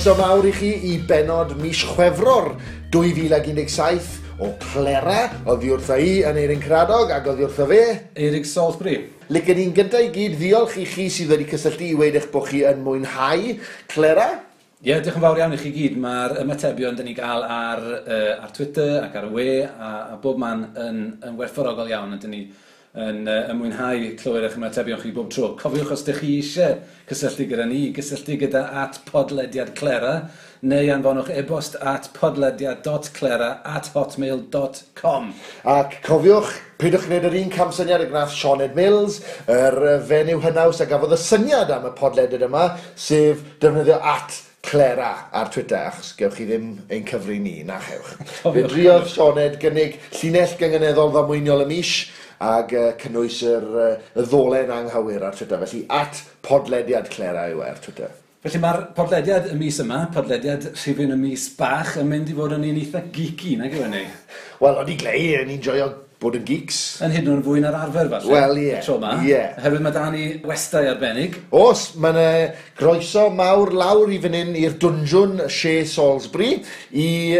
Croeso mawr i chi i benod mis Chwefror 2017 o Clera, oddi wrtha i yn Eirin Cradog ac oddi wrtho fe. Eirig Salisbury. Licen i'n gyntaf i gyd ddiolch i chi sydd wedi cysylltu i weud eich bod chi yn mwynhau Clera. Ie, yeah, diolch yn fawr iawn i chi gyd. Mae'r ymatebion dyn ni gael ar Twitter ac ar y we a bob man yn werthfawrogol iawn, a dyn ni yn mwynhau clywed eich ymatebion chi bob tro. Cofiwch, os ydych chi eisiau cysylltu gyda ni, gysylltu gyda @podlediadclera neu anfonwch e-bost at podlediad.clera@hotmail.com. Ac cofiwch, peidiwch gwneud yr un camsyniad y gwnaeth Sioned Mills, yr fenyw hynaws a gafodd y syniad am y podlediad yma, sef defnyddio @Clera ar Twitter, achos gewch chi ddim ein cyfri ni, na chewch. Fe driodd Sioned gynnig llinell gynganeddol ddamweiniol y mis, ag cynnwys y ddolen anghywir ar Twitter. Felly, @podlediadclera yw e ar Twitter. Felly mae'r podlediad y mis yma, podlediad rhifyn y mis bach, yn mynd i fod yn un eitha geeky, nag yw e ni? Wel, o'n i glei, o'n i'n joio bod yn geeks. Yn hyd yn oed yn fwy na'r arfer, falle. Wel, ie. Y tro yma. Ie. Oherwydd mae da ni westai arbennig. Oes, mae yna groeso mawr lawr i fan hyn i'r dwnjwn Chez Salisbury i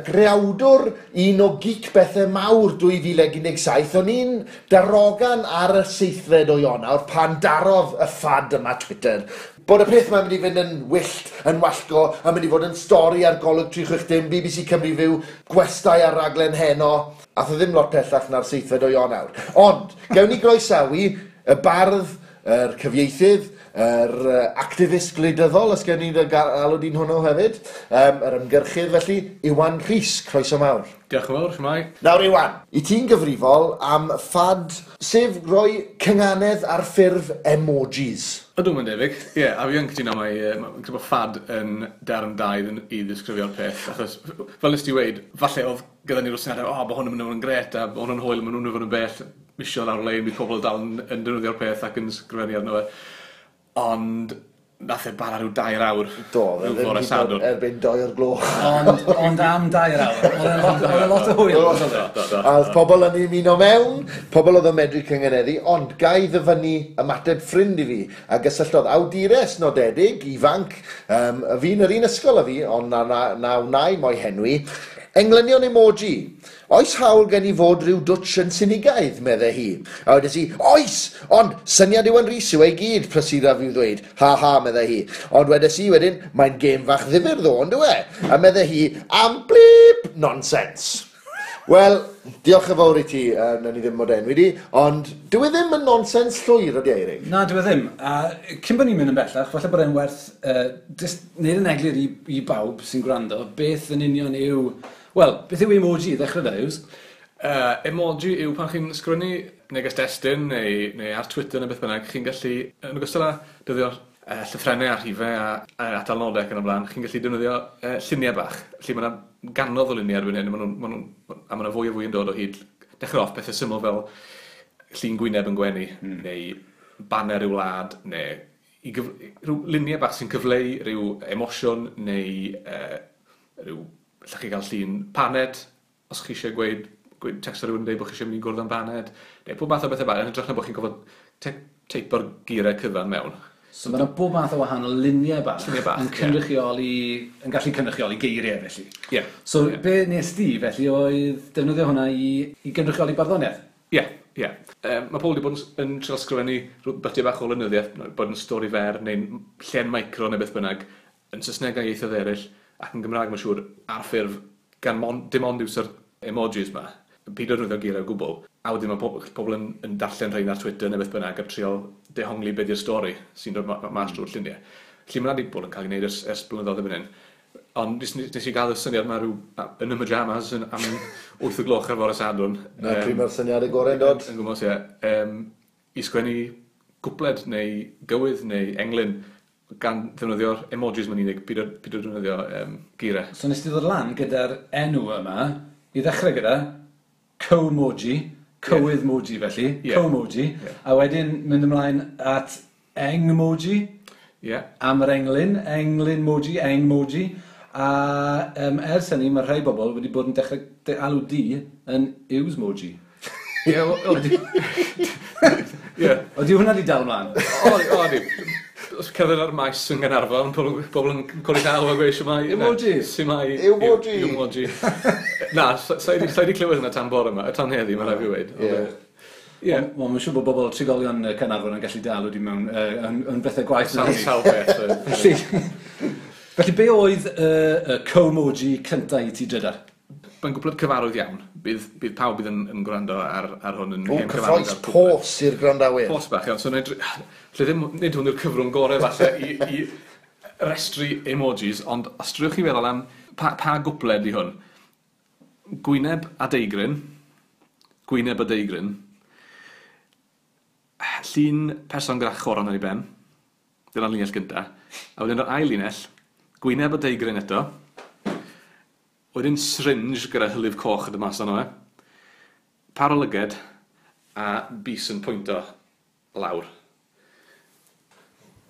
greawdwr un o geek bethau mawr 2017. O'n i'n darogan ar y 7fed o Ionawr pan darodd y ffad yma Twitter bod y peth mae'n mynd i fynd yn wyllt, yn wallgo, a mynd i fod yn stori ar Golwg 360, BBC Cymru Fyw, gwestai ar raglen heno. Ath o ddim lot pellach na'r 7fed o Ionawr. Ond, gewn ni groesawu y bardd, yr cyfieithydd, yr activist gwleidyddol, os gen i'n alw di'n hwnnw hefyd, yr ymgyrchydd felly, Iwan Rhys, croeso mawr. Diolch yn fawr, shwmae? Nawr Iwan, i ti'n gyfrifol am ffad, sef roi cynganedd ar ffurf emojis. Ydw, mae'n debyg. Ie, yeah, a fi yn cytuno mai, mae'n credu bod ffad yn derm da i ddisgrifio'r peth, achos fel nes ti weud, falle oedd gyda ni'r syniadau, o, bod hwn yn mynd i fod yn gret, a bod hwn yn hwyl, maen nhw'n mynd i fod yn bell, misio lawr lein, bydd pobl dal yn defnyddio'r peth ac yn sgrifennu arno fe. Ond nath e bara rhyw 2 awr. Do, rhyw fe ddim fore hyd yn oed Sadwrn. erbyn 2 o'r gloch. Ond am 2 awr. Oedd e'n lot o hwyl. Do, do, do, do. A oedd pobl yn ymuno mewn, pobl oedd yn medru cyngeneddu, ond ga i ddyfynnu ymateb ffrind i fi, a gysylltodd awdures nodedig, ifanc, y fi'n yr un ysgol â fi, ond na wnai mo'i henwi, englynion emoji. Oes hawl gen i fod rhyw dwtsh yn sinigaidd, meddai hi. A wedes i, oes, ond syniad Iwan Rhys yw ei gyd, prysura fi ddweud. Ha ha, meddai hi. Ond wedes i wedyn, mae'n gêm fach ddifyr ddo, on'd yw e? A meddai hi, am blip, nonsense. Wel, diolch yn fawr i ti, nawn ni ddim mod enwi di, ond dyw e ddim yn nonsens llwyr, ydy e, Eirig? Na, dyw e ddim. A cyn bod ni'n mynd yn bellach, falle bod e'n werth jyst neud yn eglur i bawb sy'n gwrando, beth yn union yw... Wel, beth yw emoji i ddechrau da, Yws? Emoji yw pan chi'n sgwennu neges destun neu ar Twitter neu beth bynnag, chi'n gallu, yn ogystal â defnyddio'r llythrennau a rhifau a atalnodau ac yn y blaen, chi'n gallu defnyddio lluniau bach. Felly mae yna ganodd o luniau erbyn hyn, a ma' 'na fwy a fwy yn dod o hyd. Dechrau off pethau syml fel llun gwyneb yn gwenu, neu baner y wlad, neu rhyw luniau bach sy'n cyfleu rhyw emosiwn, neu rhyw... Allwch chi gael llun paned, os chi eisiau gweud text ar rhywun yn dweud bod chi eisiau mynd i gwrdd am paned, neu pob math o bethau bach, yn hytrach na bod chi'n gorfod teipo'r geiriau cyfan mewn. So mae yna bob math o wahanol luniau bach, Lluniau bach, yn ie. cynrychioli, yn gallu cynrychioli geiriau felly. Ie. So Ie. be nes di felly oedd defnyddio hwnna i gynrychioli barddoniaeth? Ie, ie. Mae pobl wedi bod yn trio sgrifennu rhyw bytiau bach o lenyddiaeth, bod yn stori fer neu'n llen micro neu beth bynnag, yn Saesneg a ieithoedd eraill, ac yn Gymraeg mae'n siŵr ar ffurf gan dim ond iwso'r emojis ma, peidio defnyddio geiriau o gwbl. A wedyn mae pobl yn darllen rhain ar Twitter neu beth bynnag a trio dehongli be di'r stori sy'n dod mas drwy'r lluniau. Felly mae 'na 'di bod yn cael ei wneud ers blynyddoedd erbyn hyn. Ond nes i gael y syniad ma rhyw, yn y pyjamas am 8 o gloch ar fore Sadwrn. Na, pryd mae'r syniad y gorau'n dod? Yn gwmws, ie. I sgwennu cwpled neu gywydd neu englyn gan ddefnyddio'r emojis ma'n unig, peidio defnyddio geiriau. So nes ti ddod lan gyda'r enw yma, i ddechrau gyda co-moji, cywydd moji felly, co-moji, a wedyn mynd ymlaen at engmoji, am yr englyn, englyn moji, engmoji, a ers hynny mae rhai bobl wedi bod yn dechrau alw di yn Iwsmoji. Ie, wel, wel, di- Ie. Ydy hwnna di dal mlaen? O, o, di. Os cerdded ar maes yn Gaernarfon, pobl yn codi llaw a gweud shwmae. Emoji. Shwmae. Emoji. Emoji. Na, sa i 'di clywed hwnna tan bore yma, tan heddi, mae'n rhaid fi weud. Ie. Ie. Wel, mae'n siŵr bod bobl trigolion Caernarfon yn gallu dal wedi mewn yn bethau gwaith. Sawl beth. Felly, be oedd y co-moji cyntaf i ti drydar? Mae'n gwbl cyfarwydd iawn. Bydd pawb bydd yn gwrando ar hwn yn O, hen cyfarwydd cyffroes ar cwpled. pos i'r gwrandawyr. Pos bach iawn. So, lle ddim, nid hwn yw'r cyfrwng gorau falle i restru emojis, ond os drwch chi feddwl am pa gwpled i hwn. Gwyneb a deigryn. Gwyneb a deigryn. Llun person gyda choron ar ei ben. Dyna'r linell gynta. A wedyn yr ail linell, gwyneb a deigryn eto. Wedyn syringe gyda hylif coch yn dod mas arno fe. Par o lyged a bys yn pwynto lawr.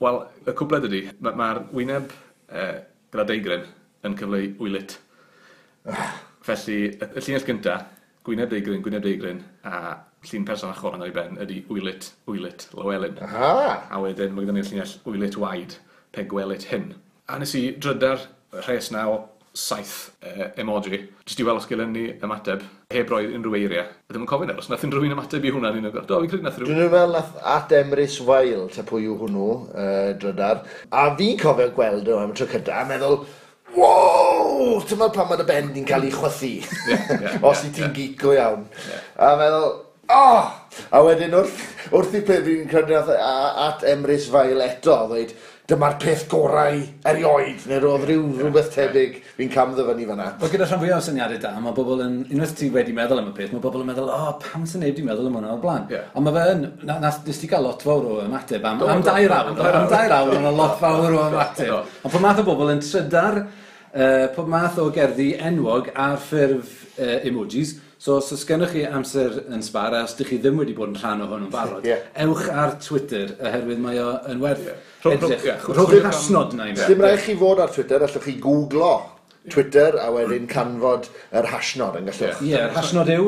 Wel, y cwpled ydy, mae'r wyneb gyda deigryn yn cyfleu wylit. Felly, y llinell gynta, gwyneb deigryn, a llun person â choron ar ei ben ydy wylit, wylit, Lywelyn. Aha! A wedyn mae gyda ni'r llinell wylit waed, pe gwelit hyn. A nes i drydar rhes na o 7 emoji, jyst i weld os gelen ni ymateb, heb roi unrhyw eiriau. A ddim yn cofio nawr, os nath unrhyw un ymateb i hwnna, ni'n do, fi'n credu nath rhywun. Dwi'n meddwl nath at Emrys Weil, ta pwy yw hwnnw, drydar. A fi'n cofio gweld nhw am y tro cyntaf, a meddwl, wow, ti'n meddwl pan mae dy ben di'n cael ei chwythu. Os i ti'n geek go iawn. A meddwl, oh! A wedyn wrth i peth fi'n credu nath at Emrys Weil eto, ddweud, dyma'r peth gorau erioed, neu roedd rhywbeth tebyg fi'n cam ddyfynnu fan'na. Wel, gyda rhan fwyaf o syniadau da, mae bobl yn, unwaith ti wedi meddwl am y peth, mae bobl yn meddwl, o, pam sy'n neb wedi meddwl am hwnna o'r blaen? Ond mae fe yn, nes ti gael lot fawr o ymateb am 2 awr, am 2 awr, mae'n lot fawr o ymateb. Ond pob math o bobl yn trydar, pob math o gerddi enwog ar ffurf emojis. So, os oes gennych chi amser yn sbar, a os ydych chi ddim wedi bod yn rhan o hwn yn barod, ewch ar Twitter, oherwydd mae o yn werth edrych. Rhowch yr hashnod na i mi. Dim rhaid chi fod ar Twitter, allwch chi googlo Twitter a wedyn canfod yr hashnod yn gallwch. Ie, yr hashnod yw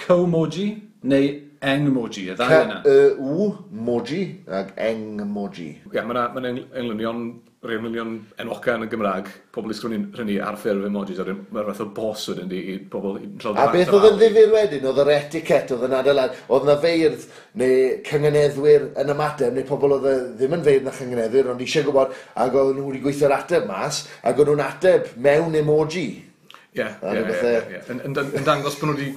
co-moji neu engmoji, y ddau yna. C-E-U-moji ac engmoji. Ie, mae yna englynion, rhai englynion enwoca yn y Gymraeg, pobl i sgwennu rhynnu ar ffurf emojis, a mae'r fath o bos wedyn di i pobl i A beth oedd yn ddifyr wedyn, oedd yr etiquette, oedd yn adeilad, oedd yna feirdd neu cynganeddwyr yn ymateb, neu pobl oedd ddim yn feirdd na chynganeddwyr, ond eisiau gwybod, ac oedd nhw wedi gweithio'r ateb mas, ac oedd nhw'n ateb mewn emoji. Ie. Yn dangos bod nhw wedi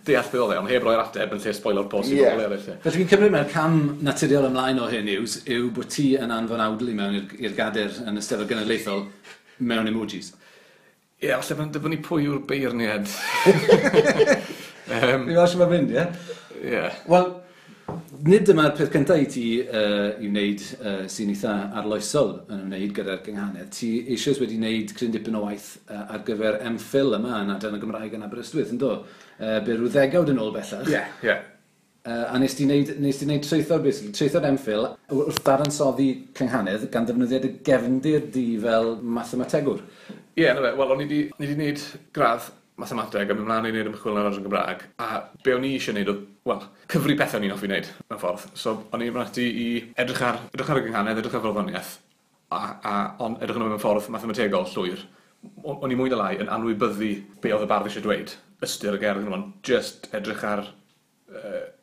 deall beth oedd e, ond heb roi'r ateb yn lle spoilo'r post i bobl eraill. Felly fi'n cymryd mae'r cam naturiol ymlaen o hyn yw bod ti yn anfon awdl i mewn i'r gader yn y Steddfod Genedlaethol mewn emojis. Ie, falle mae'n dibynnu pwy yw'r beirniad. Fi'n meddwl sut mae'n mynd, ie? Ie. Wel, nid dyma'r peth cyntaf i ti i wneud sy'n eitha arloesol yn ymwneud gyda'r gynghanedd. Ti eisoes wedi wneud cryn dipyn o waith ar gyfer MPhil yma yn Adran y Gymraeg yn Aberystwyth, yn do? Be rhyw ddegawd yn ôl bellach. Ie, ie. A nes ti wneud traethawd, basically, traethawd MPhil wrth dadansoddi cynghanedd gan ddefnyddio dy gefndir di fel mathemategwr. Ie, na fe. Wel, o'n i wedi wneud gradd mathemateg a mynd mlaen i wneud ymchwil yn yr Adran Gymraeg, a be o'n i eisiau wneud oedd, wel, cyfri pethau o'n i'n hoffi wneud, mewn ffordd. So, o'n i'n mynd ati i edrych ar y gynghanedd, edrych ar farddoniaeth, a on, edrych arno mewn ffordd mathemategol llwyr. O'n i mwy na lai yn anwybyddu be oedd y bardd eisiau dweud, ystyr y gerdd, just edrych ar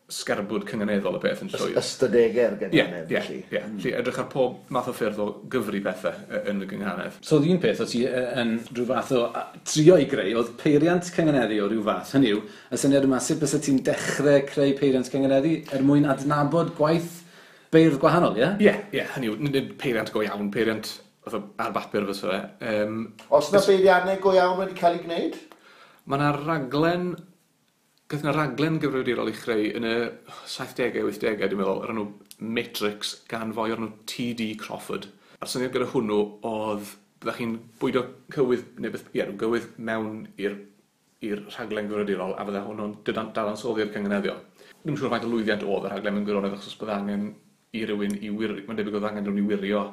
sgerbwd cynganeddol y peth yn llwyr. Ystadegau'r gynghanedd, felly. Ie, felly edrych ar pob math o ffyrdd o gyfri pethau yn y gynghanedd. So, oedd un peth o ti yn rhyw fath o trio i greu, oedd peiriant cynganeddu o ryw fath, hynny yw, y syniad yma, sut bysa ti'n dechrau creu peiriant cynganeddu er mwyn adnabod gwaith beirdd gwahanol, ie? Ie, ie, hynny yw, nid peiriant go iawn, peiriant ar bapur fysa fe. Os na beiriannau go iawn wedi cael ei gwneud? Mae yna raglen... Gath yna raglen gyfrifiadurol ei chreu yn y 70au, 80au, dwi'n meddwl, o'r enw Matrix gan foi o'r enw T.D. Crawford. A'r syniad gyda hwnnw oedd, byddech chi'n bwydo cywydd, neu beth, ie, gywydd mewn i'r rhaglen gyfrifiadurol, a fydde hwnnw'n dadansoddi'r cynganeddion. Dwi'm yn siŵr faint o lwyddiant oedd y rhaglen mewn gwirionedd, achos bydde angen i rywun i wirio, mae'n debyg oedd angen rhywun i wirio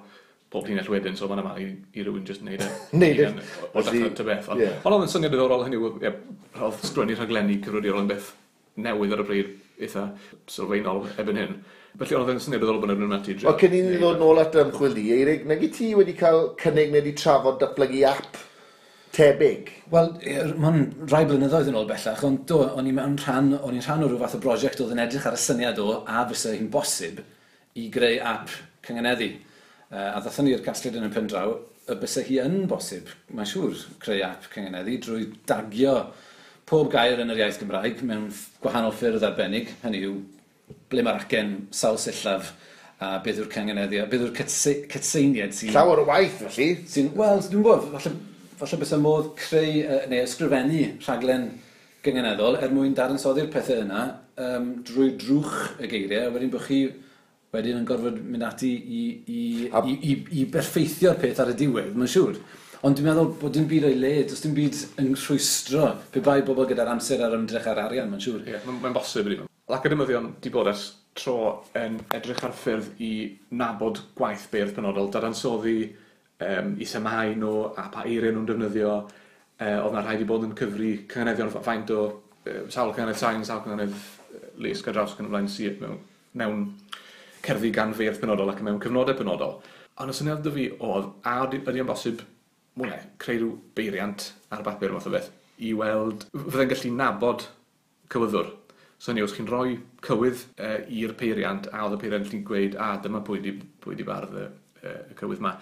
pob llinell wedyn, so mae'n yma i rywun jyst wneud e. Neud e. O dechrau ta beth. Ond oedd yn syniad diddorol, hynny yw, oedd sgwennu rhaglenni cyfrifiadurol yn beth newydd ar y pryd eitha sylfaenol erbyn hyn. Felly oedd yn syniad diddorol bod nhw'n ati drio. Cyn i ni ddod nôl at ymchwil di, Eirig, nag i ti wedi cael cynnig neu wedi trafod datblygu app tebyg? Wel, mae'n rai blynyddoedd yn ôl bellach, ond do, o'n i'n rhan, o'n i'n rhan o rhyw fath o brosiect oedd yn edrych ar y syniad o a fysa hi'n bosib i greu app cyngeneddu. A ddathon ni i'r casgliad yn y pen draw, y bysa hi yn bosib, mae'n siŵr, creu app cyngeneddu drwy dagio pob gair yn yr iaith Gymraeg mewn gwahanol ffyrdd arbennig, hynny yw ble mae'r acen sawl sillaf a beth yw'r cyngeneddu, a beth yw'r cytseiniad sy'n... Llawer o waith, felly. Sy'n, wel, dwi'n gwybod, falle bysa modd creu neu ysgrifennu rhaglen gyngeneddol er mwyn dadansoddi'r pethau yna drwy drwch y geiriau, a wedyn bod chi wedyn yn gorfod mynd ati i berffeithio'r peth ar y diwedd, mae'n siŵr. Ond dwi'n meddwl bod dim byd o'i le, does dim byd yn rhwystro pe bai bobl gyda'r amser a'r ymdrech a'r arian, mae'n siŵr. Ie, yeah, mae'n bosib ydy. Academyddion di bod ers tro yn edrych ar ffyrdd i nabod gwaith beirdd penodol, dadansoddi i themâu nhw a pa eiriau nhw'n defnyddio. Oedd na rhaid i bod yn cyfri cynganeddion faint o sawl cynganedd sain, sawl cynganedd lusg ar draws ac yn y blaen sydd mewn cerddi gan feirdd penodol ac mewn cyfnodau penodol. Ond y syniad 'da fi oedd, a ydy yn bosib mwy neu, creu rhyw beiriant ar bapur math o beth, i weld, fydde'n gallu nabod cywyddwr. So hynny, os chi'n rhoi cywydd i'r peiriant, a oedd y peiriant yn gweud, a dyma pwy di bardd y cywydd ma.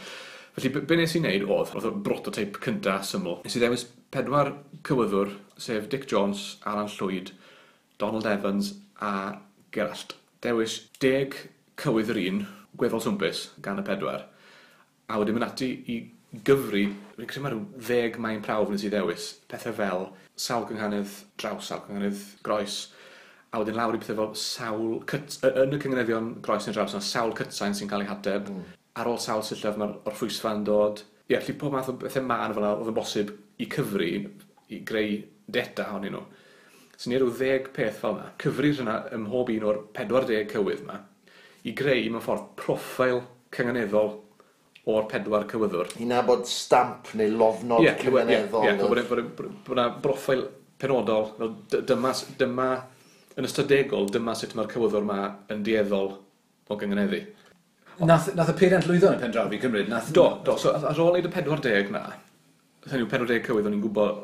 Felly, be nes i wneud oedd y prototype cynta syml. Nes i ddewis 4 cywyddwr, sef Dic Jones, Alan Llwyd, Donald Evans a Gerallt. Dewis 10 cywydd yr un, gweddol swmpus, gan y 4. A wedyn mynd ati i gyfri, fi'n credu mae rhyw 10 maen prawf nes i ddewis, pethau fel sawl cynghanedd draws, sawl cynghanedd groes, a wedyn lawr i pethau fel sawl, yn y cynganeddion groes neu draws, yna sawl cytsain sy'n cael ei hateb, ar ôl sawl sillaf mae'r orffwysfa yn dod. Ie, felly pob math o bethau mân fel yna oedd yn bosib i cyfri, i greu data ohonyn nhw. So ni rhyw 10 peth fel yna, cyfri hynna ym mhob un o'r 40 cywydd yma, i greu mewn ffordd proffil cynganeddol o'r 4 cywyddwr. I nabod stamp neu lofnod cynganeddol. Ie, bod yna broffil penodol, fel dyma, yn ystadegol, dyma sut mae'r cywyddwr yma yn dueddol o gynganeddu. Nath y peiriant lwyddo yn y pen draw fi'n cymryd? Do. So ar ôl wneud y 40 na, hynny yw 40 cywydd, o'n i'n gwybod,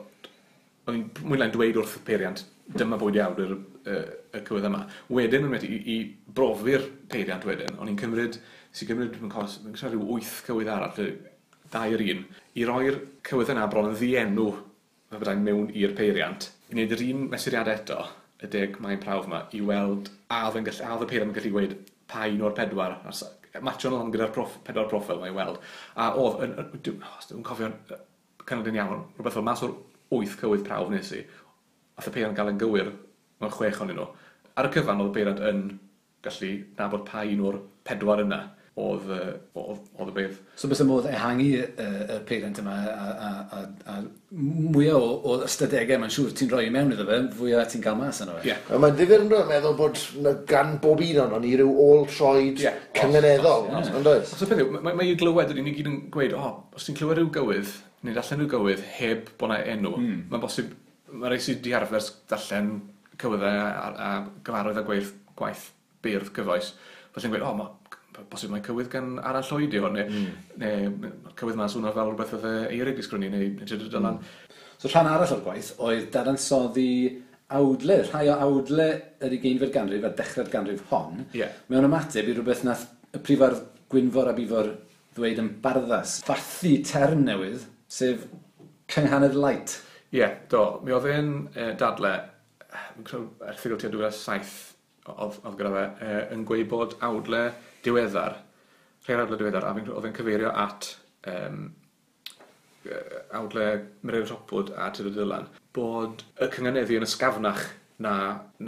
o'n i'n mwy neu lai'n dweud wrth y peiriant, dyma bwyd iawn y cywydd yma. Wedyn, o'n i i brofi'r peiriant wedyn, o'n i'n cymryd, sy'n cymryd, fi'n cofio rhyw 8 cywydd arall, 2 yr un, i roi'r cywydd yna bron yn ddienw, fe byddai'n mewn i'r peiriant, i wneud yr un mesuriad eto, y 10 maen prawf yma, i weld a oedd y peiriant yn gallu gweud pa un o'r 4, matcho nhw gyda'r 4 proffil yma i weld. A oedd, dwi'n cofio'n cynnal yn iawn, rhywbeth fel mas o'r 8 cywydd prawf nes i, ath y peiriant gael yn gywir mewn 6 ohonyn nhw. Ar y cyfan oedd y peiriant yn gallu nabod pa un o'r 4 yna oedd y beirdd. So bysa modd ehangu y peiriant yma a mwyaf o ystadegau mae'n siŵr ti'n rhoi i mewn iddo fe, fwyaf ti'n cael mas yno fe. Yeah. Mae'n ddifyr yn meddwl bod gan bob un ohonon ni ryw ôl troed cynganeddol, yn does? So peth yw, mae i glywed, ni gyd yn gweud, os ti'n clywed rhyw gywydd, neu darllen rhyw gywydd heb bod 'na enw, mae'n bosib, mae rhai sydd 'di arfer darllen cywyddau a gyfarwydd a gwaith beirdd cyfoes, felly'n gweud, mae bosib mae cywydd gan Alan Llwyd i hwn, neu cywydd ma'n swnio fel rhywbeth oedd Eirig 'di sgwennu, neu Tudur Dylan. So rhan arall o'r gwaith oedd dadansoddi awdle, rhai o awdle yr 20fed ganrif a dechrau'r ganrif hon, mewn ymateb i rhywbeth nath y prifardd Gwynfor ab Ifor ddweud yn barddas, fathu term newydd, sef cynghanedd light. Ie, do. Mi oedd e'n dadle, fi'n credu erthygl tua 2007 oedd gyda fe, yn gweud bod awdle diweddar, rhai awdle diweddar, a oedd e'n cyfeirio at awdle Mererid Hopwood a Tudur Dylan, bod y cynganeddu yn ysgafnach na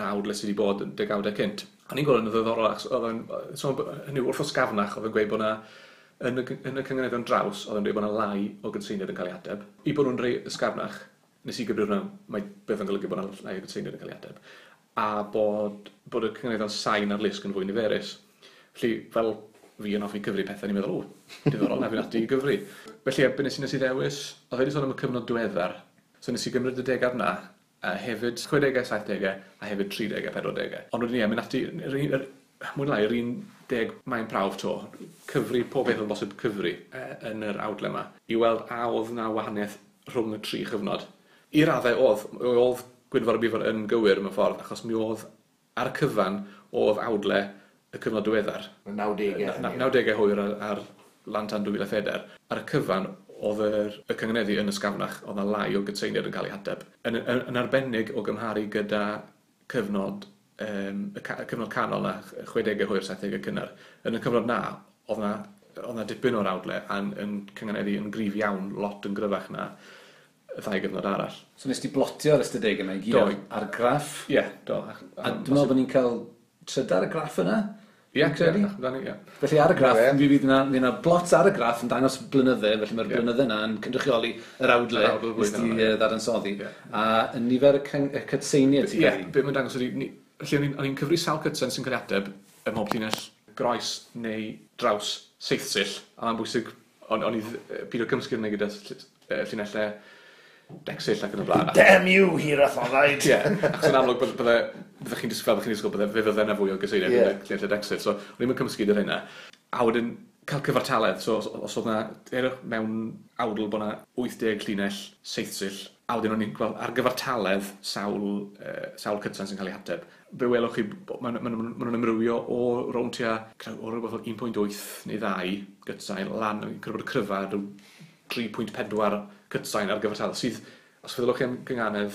awdle sydd wedi bod yn degawdau cynt. A ni'n gweld yn ddiddorol, achos oedd e'n, hynny wrth ysgafnach, oedd e'n gweud bod na, yn y cynganeddion draws, oedd e'n dweud bod na lai o gydseiniad yn cael ei ateb. I bod nhw'n rhai ysgafnach, nes i gyfri hwnna, mae beth yn golygu bod na lai o gydseiniad yn cael ei ateb. A bod y cynganeddion sain ar lusg yn fwy niferus. Felly, fel fi yn hoffi cyfri pethau, ni'n meddwl, diddorol, na fi'n ati i gyfri. Felly, be nes i ddewis, oedd wedi sôn am y cyfnod diweddar, so nes i gymryd y degawd na, a hefyd 60au, 70au, a hefyd 30au, 40au. Ond wedyn ie, mynd ati, mwy neu lai, yr 10 maen prawf to, cyfri pob beth oedd bosib cyfri yn yr awdle yma, i weld a oedd na wahaniaeth rhwng y tri chyfnod. I raddau oedd Gwynfor a Bifar yn gywir mewn ffordd, achos mi oedd ar y cyfan oedd awdle y cyfnod diweddar. 90au. 90au hwyr ar lan tan 2004. Ar y cyfan oedd y cyngeneddu yn ysgafnach, oedd 'na lai o gytseiniad yn cael ei hateb. Yn arbennig o gymharu gyda cyfnod, y cyfnod canol na, 60au hwyr, 70au cynnar. Yn y cyfnod na, oedd 'na dipyn o'r awdle yn cyngeneddu yn gryf iawn, lot yn gryfach na y ddau gyfnod arall. So nes ti blotio'r ystadegau yma i gyd ar graff? Ie, do. A dwi'n meddwl bod ni'n cael trydar y graff yna? Ie, amdani, ie. Felly ar y graff, mi fydd yna blot ar y graff yn dangos blynydde, felly mae'r blynydde yna yn cynrychioli yr awdle nes ti ddadansoddi. A y nifer y cytseiniad ti'n Ie, be mae'n dangos ydy, felly o'n i'n cyfri sawl cytsen sy'n cael ei ateb ym mhob llinell groes neu draws seithsill, a mae'n bwysig, o'n i pido cymysgu hynny gyda llinellau decsill ac yn y blaen. Damn you, hirathonau! Ie, achos yn amlwg bydde chi'n disgwyl, fe fydde yna fwy o gyseiniad yn y llinellau decsill, so o'n i'n cymysgu gyda'r hynna. A wedyn cael cyfartaledd, so os oedd yna, mewn awdl bod yna 80 llinell seithsill, a wedyn o'n i'n gweld ar gyfartaledd sawl cytsan sy'n cael ei hateb. Fe welwch chi, maen nhw'n amrywio o rownd tua, o rhywbeth fel 1.8 neu 2 gytsain, lan, yn credu bod y cryfa rhyw 3.4 cytsain ar gyfartaledd, sydd, os feddylwch chi am gynganedd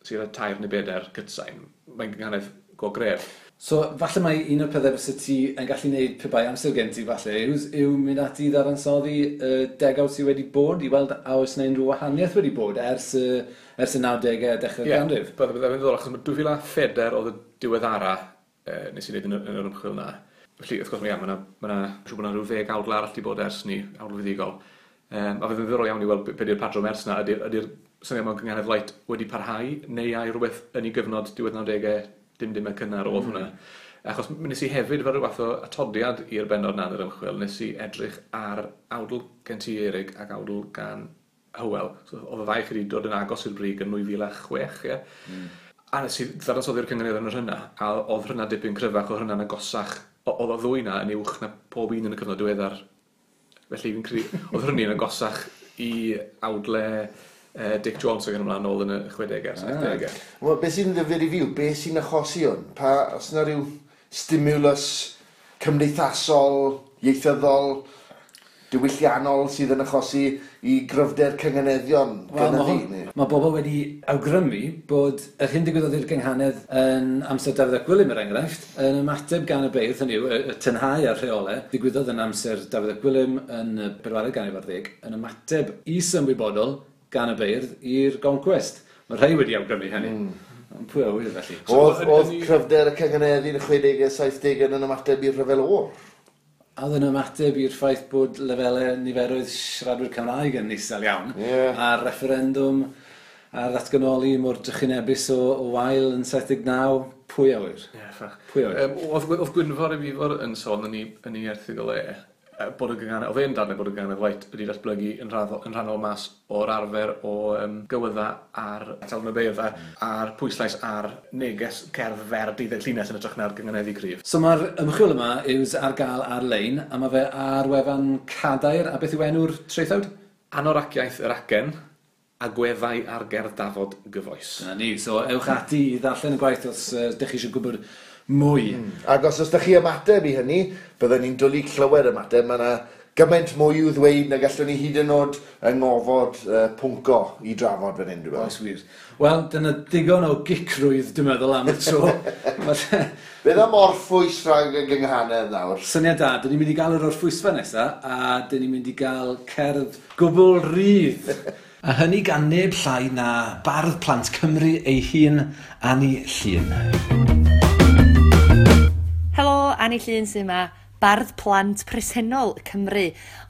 sydd ar 3 neu 4 cytsain, mae'n gynganedd go gref. So, falle mai un o'r pethau fysa ti yn gallu gwneud pe bai amser gen ti falle yw mynd ati i ddadansoddi y degawd sydd wedi bod i weld a oes yna unrhyw wahaniaeth wedi bod ers y 90au a dechrau'r ganrif. Ie, byddai'n ddiddorol, achos 2004 oedd y diweddara nes i wneud yn yr ymchwil na. Felly, wrth gwrs, mae yna siŵr bod yna rhyw 10 awdl arall wedi bod ers ni, awdl fuddugol. A fydd yn ddiddorol iawn i weld be di'r patrwm ers na. Ydy'r syniad mewn gynghanedd light wedi parhau, neu ai rhywbeth yn ei gyfnod diwedd 90au, dim y cynnar oedd hwnna. Achos nes i hefyd fel rhyw fath o atodiad i'r bennod na yn yr ymchwil, nes i edrych ar awdl gen ti Erig ac awdl gan Hywel. So, oedd y ddau chi wedi dod yn agos i'r brig yn 2006, ie. A nes i ddadansoddi'r cyngenedd yn yr hynna, a oedd hynna dipyn cryfach, oedd hynna'n agosach. Oedd y ddwy na yn uwch na pob un yn y cyfnod diweddar. Felly fi'n credu, oedd hynny'n agosach i awdle Dick Jones ac yn ymlaen nôl yn y 60au, 70au. Wel, beth sy'n ddifyr i fi yw, beth sy'n achosi hwn? Pa, os yna rhyw stimulus cymdeithasol, ieithyddol, diwylliannol sydd yn achosi i gryfder cynganeddion gynyddu? Mae bobl wedi awgrymu bod yr hyn digwyddodd i'r gynghanedd yn amser Dafydd ap Gwilym, er enghraifft, yn ymateb gan y beirdd, hynny yw, y tynhau a'r rheolau, digwyddodd yn amser Dafydd ap Gwilym yn y bedwaredd ganrif ar ddeg, yn ymateb is-ymwybodol gan y beirdd i'r goncwest. Mae rhai wedi awgrymu hynny. Ond pwy a ŵyr felly? Oedd cryfder y cynganeddu yn y 60au, 70au yn ymateb i'r rhyfel oer? A oedd yn ymateb i'r ffaith bod lefelau niferoedd siaradwyr Cymraeg yn isel iawn. A'r referendwm a'r ddatganoli mor drychinebus o wael yn 79, pwy a ŵyr? Ie, ffach. Pwy a ŵyr? Oedd Gwynfor Ifor yn sôn yn ei erthygl e, bod y gynghanedd, oedd e'n dadlau bod y gynghanedd light wedi datblygu yn rhannol mas o'r arfer o gywydda ar Talwrn y Beirdd a'r pwyslais ar neges cerdd fer 12 llinell yn hytrach na'r gynghaneddu cryf. So mae'r ymchwil yma yw ar gael ar-lein, a mae fe ar wefan Cadair, a beth yw enw'r traethawd? Anoraciaeth yr acen, agweddau ar gerdd dafod gyfoes. Dyna ni, so ewch ati i ddarllen y gwaith os ydych chi eisiau gwybod mwy. Ac os ydych chi ymateb i hynny, byddwn ni'n dwlu clywed ymateb. Mae yna gymaint mwy i'w ddweud na gallwn ni hyd yn oed yng ngofod pwnco i drafod fan hyn, dwi'n meddwl. Oes wir. Wel, dyna digon o gicrwydd, dwi'n meddwl, am y tro. Beth am orffwys rhag y gynghanedd nawr? Syniad da, dyn ni'n mynd i gael yr orffwysfa nesaf, a dyn ni'n mynd i gael cerdd gwbl rydd. A hynny gan neb llai na bardd plant Cymru ei hun, Anni Llŷn. Helo, Anni Llŷn sy'n yma, bardd plant presennol Cymru,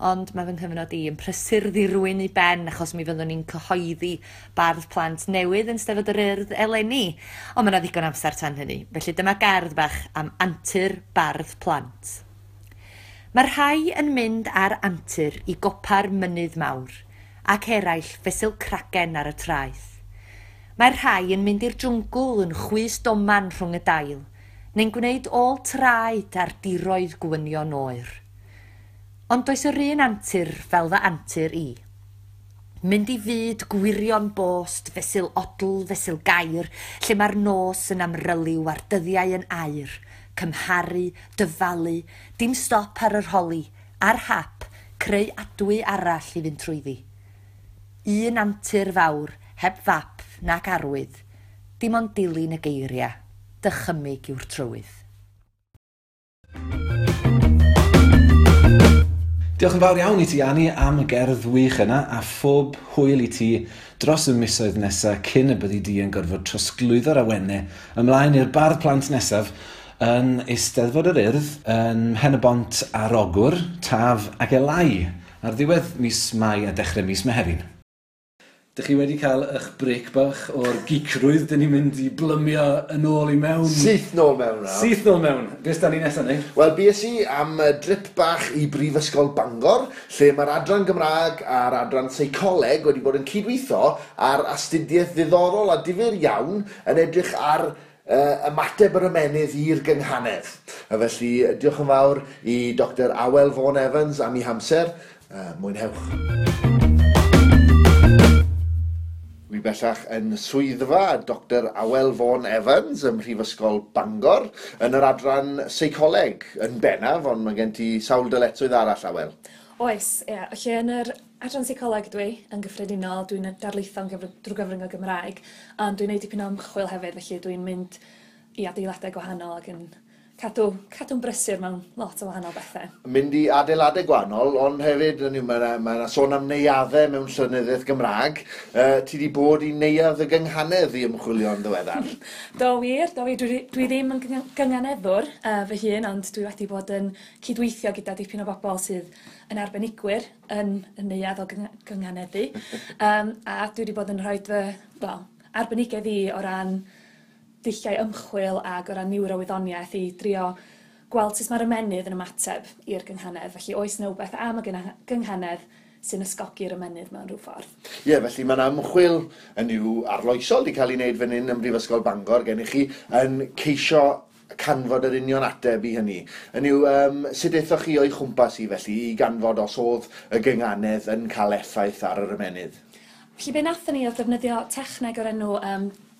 ond mae fy nghyfnod i yn prysur ddirwyn i ben achos mi fyddwn ni'n cyhoeddi bardd plant newydd yn Steddfod yr Urdd eleni, ond mae yna ddigon amser tan hynny, felly dyma gerdd bach am antur bardd plant. Mae rhai yn mynd ar antur i gopa'r mynydd mawr, ac eraill fesul cragen ar y traeth. Mae'r rhai yn mynd i'r jwngl yn chwys doman rhwng y dail, neu'n gwneud ôl traed ar diroedd gwynion oer. Ond does yr un antur fel fy antur i. Mynd i fyd gwirion bost fesul odl fesul gair, lle mae'r nos yn amryliw a'r dyddiau yn aur, cymharu, dyfalu, dim stop ar yr holi, ar hap, creu adwy arall i fynd trwyddi. Un antur fawr, heb fap nac arwydd, dim ond dilyn y geiriau, dychymyg yw'r trywydd. Diolch yn fawr iawn i ti, Annie, am y gerdd wych yna, a phob hwyl i ti dros y misoedd nesaf cyn y byddi di yn gorfod trosglwyddo'r awennau ymlaen i'r bardd plant nesaf yn Eisteddfod yr Urdd yn Mhen-y-bont ar Ogwr, Taf ac Elai ar ddiwedd mis Mai a dechrau mis Mehefin. Dych chi wedi cael eich break bach o'r geekrwydd, dyn ni'n mynd i blymio yn ôl i mewn. Syth nôl mewn nawr. Syth nôl mewn. Beth da ni nesaf, Neil? Wel, bues i am drip bach i Brifysgol Bangor, lle mae'r adran Gymraeg a'r adran Seicoleg wedi bod yn cydweithio ar astudiaeth ddiddorol a difyr iawn yn edrych ar ymateb yr ymennydd i'r gynghanedd. A felly, diolch yn fawr i Dr Awel Vaughan Evans am ei hamser. Mwynhewch. Wi bellach yn swyddfa Dr Awel Vaughan Evans ym Mhrifysgol Bangor yn yr adran seicoleg yn bennaf, ond mae gen ti sawl dyletswydd arall, Awel. Oes, ie. Felly yn yr adran seicoleg dwi yn gyffredinol, dwi'n darlitho'n drwy gyfrwng y Gymraeg, ond dwi'n neud dipyn o ymchwil hefyd, felly dwi'n mynd i adeiladau gwahanol ac yn cadw'n brysur mewn lot o wahanol bethau. Mynd i adeiladau gwahanol, ond hefyd, mae yna sôn am neuaddau mewn llenyddiaeth Gymraeg. Ti wedi bod i neuadd y gynghanedd i ymchwilio yn ddiweddar? Do wir, do wir. Dwi ddim yn gynganeddwr fy hun, ond dwi wedi bod yn cydweithio gyda dipyn o bobl sydd yn arbenigwyr yn y neuadd o gynganeddu. A dwi wedi bod yn rhoi fy, wel, arbenigedd i o ran dulliau ymchwil ag o ran niwrowyddoniaeth i drio gweld sut mae'r ymennydd yn ymateb i'r gynghanedd. Felly oes 'na wbeth am y gynghanedd sy'n ysgogi'r ymennydd mewn rhyw ffordd. Ie, felly mae 'na ymchwil yn yw arloesol wedi cael ei wneud fan hyn ym Mhrifysgol Bangor gennych chi yn ceisio canfod yr union ateb i hynny. Yn yw, sut aethoch chi o'i chwmpas i felly i ganfod os oedd y gynghanedd yn cael effaith ar yr ymennydd? Felly be nathon ni oedd defnyddio techneg o'r enw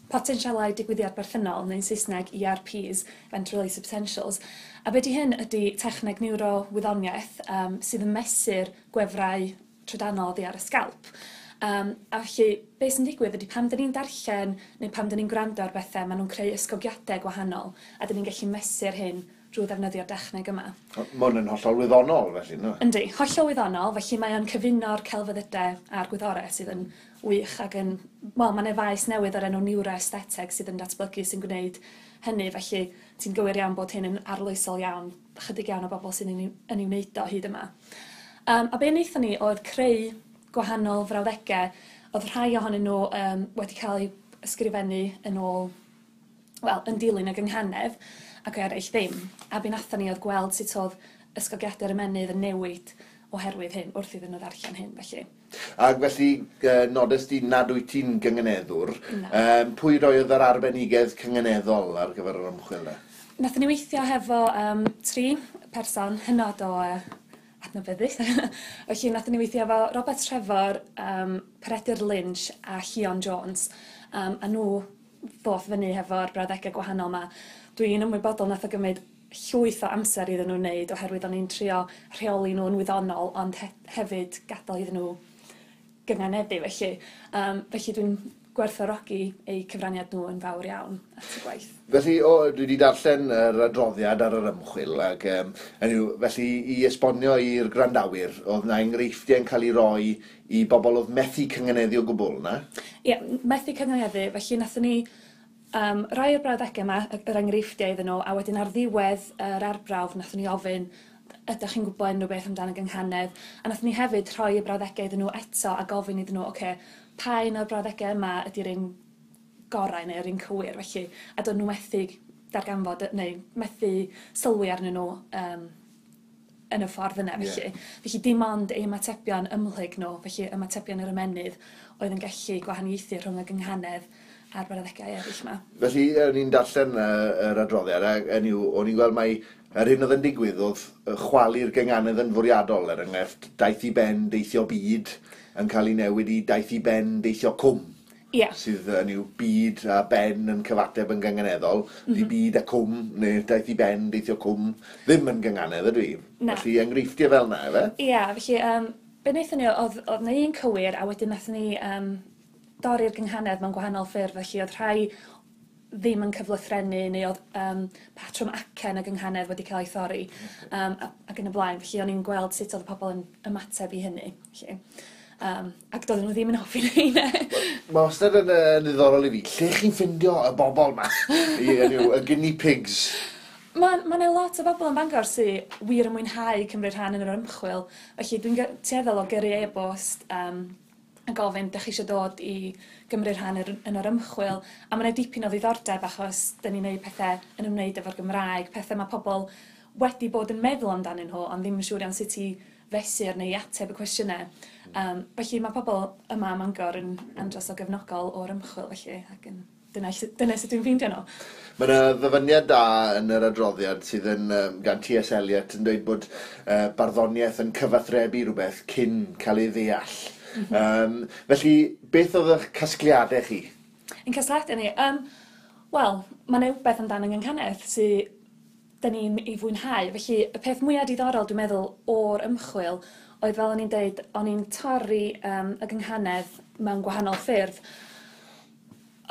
potensialau digwyddiad berthynol, neu'n Saesneg ERPs, Event Release Potentials. A be di hyn ydy techneg niwrowyddoniaeth sydd yn mesur gwefrau trydanol oddi ar y sgalp. A felly, be sy'n digwydd ydy pan dyn ni'n darllen neu pan dyn ni'n gwrando ar bethau, maen nhw'n creu ysgogiadau gwahanol, a dyn ni'n gallu mesur hyn drwy ddefnyddio'r dechneg yma. Mae hwn yn hollol wyddonol, felly, no? Yndi, hollol wyddonol, felly mae o'n cyfuno'r celfyddydau a'r gwyddorau sydd yn wych ac yn... Wel, mae 'na faes newydd o'r enw neuroaestheteg sydd yn datblygu sy'n gwneud hynny, felly ti'n gywir iawn bod hyn yn arloesol iawn, chydig iawn o bobl sy'n yn ei wneud o hyd yma. A be wnaethon ni oedd creu gwahanol frawddegau, oedd rhai ohonyn nhw wedi cael eu ysgrifennu yn ôl, wel, yn dilyn y gynghanedd, ac eraill ddim. A be wnaethon ni oedd gweld sut oedd ysgogiadau'r ymennydd yn newid oherwydd hyn, wrth iddyn nhw ddarllen hyn, felly. Ac felly, nodes di nad wyt ti'n gynganeddwr. Na. Pwy roedd yr arbenigedd cynganeddol ar gyfer yr ymchwil 'na? Nathon ni weithio hefo 3 person hynod o adnabyddus. Felly nathon ni weithio efo Robert Trefor, Peredur Lynch a Llion Jones. A nhw ddoth fyny hefo'r brawddegau gwahanol 'ma. Dwi'n ymwybodol nath o gymryd llwyth o amser iddyn nhw wneud oherwydd o'n i'n trio rheoli nhw'n wyddonol ond hefyd gadael iddyn nhw gynganeddu felly. Felly dwi'n gwerthfawrogi eu cyfraniad nhw yn fawr iawn at y gwaith. Felly, dwi wedi darllen yr adroddiad ar yr ymchwil ac felly i esbonio i'r gwrandawyr, oedd 'na enghreifftiau yn cael ei roi i bobl oedd methu cynganeddu o gwbl, na? Ie, methu cynganeddu, felly nathon ni rhai o'r brawddegau yma, yr enghreifftiau iddyn nhw, a wedyn ar ddiwedd yr arbrawf nathon ni ofyn, ydych chi'n gwybod unrhyw beth amdano gynghanedd? A nathon ni hefyd rhoi y brawddegau iddyn nhw eto a gofyn iddyn nhw, ocê, pa un o'r brawddegau yma ydy'r un gorau neu'r un cywir, felly, a do'n nhw methu darganfod, neu methu sylwi arnyn nhw yn y ffordd yna, felly. Felly dim ond eu ymatebion ymhlyg nhw, felly ymatebion yr ymennydd, oedd yn gallu gwahaniaethu rhwng y gynghanedd a'r brawddegau eraill yma. Felly, o'n i'n darllen yr adroddiad, a o'n i'n gweld mai yr hyn oedd yn digwydd oedd chwalu'r gynganedd yn fwriadol, er enghraifft, daeth i ben deithio byd yn cael ei newid i daeth i ben deithio cwm. Yeah. Sydd yn yw byd a ben yn cyfateb yn gynganeddol, di byd a cwm, neu daeth i ben deithio cwm, ddim yn gynganedd ydw i. Na. Felly enghreifftiau fel 'na, ife? Ie, yeah, felly be wnaethon ni oedd 'na un cywir, a wedyn wnaethon ni dorri'r gynghanedd mewn gwahanol ffyrdd, felly oedd rhai ddim yn cyflythrennu, neu oedd patrwm acen y gynghanedd wedi cael ei thorri, ac yn y blaen. Felly o'n i'n gweld sut oedd y pobl yn ymateb i hynny. Felly, ac doedden nhw ddim yn hoffi rheina. Mae wastad yn ddiddorol i fi. Lle chi'n ffindio y bobl ma? Y guinea pigs? Mae 'na lot o bobl yn Bangor sydd wir yn mwynhau cymryd rhan yn yr ymchwil. Felly dwi'n tueddol o gyrru e-bost a gofyn, "Dach chi eisiau dod i gymryd rhan yn yr ymchwil?" A mae 'na dipyn o ddiddordeb achos dyn ni'n neud pethau yn ymwneud efo'r Gymraeg, pethau mae pobl wedi bod yn meddwl amdanyn nhw, ond ddim yn siŵr iawn sut i fesur neu i ateb y cwestiynau. Felly mae pobl yma ym Mangor yn andros o gefnogol o'r ymchwil felly, ac yn dyna sut dwi'n ffeindio nhw. Mae yna ddyfyniad da yn yr adroddiad sydd yn gan T.S. Eliot yn dweud bod barddoniaeth yn cyfathrebu rhywbeth cyn cael ei ddeall. Felly, beth oedd eich casgliadau chi? Ein casgliadau ni? Wel, mae yna rhywbeth amdano gynghanedd sydd dyn ni'n ei fwynhau. Felly, y peth mwyaf diddorol, dwi'n meddwl, o'r ymchwil oedd, fel o'n i'n deud, o'n i'n torri y gynghanedd mewn gwahanol ffyrdd.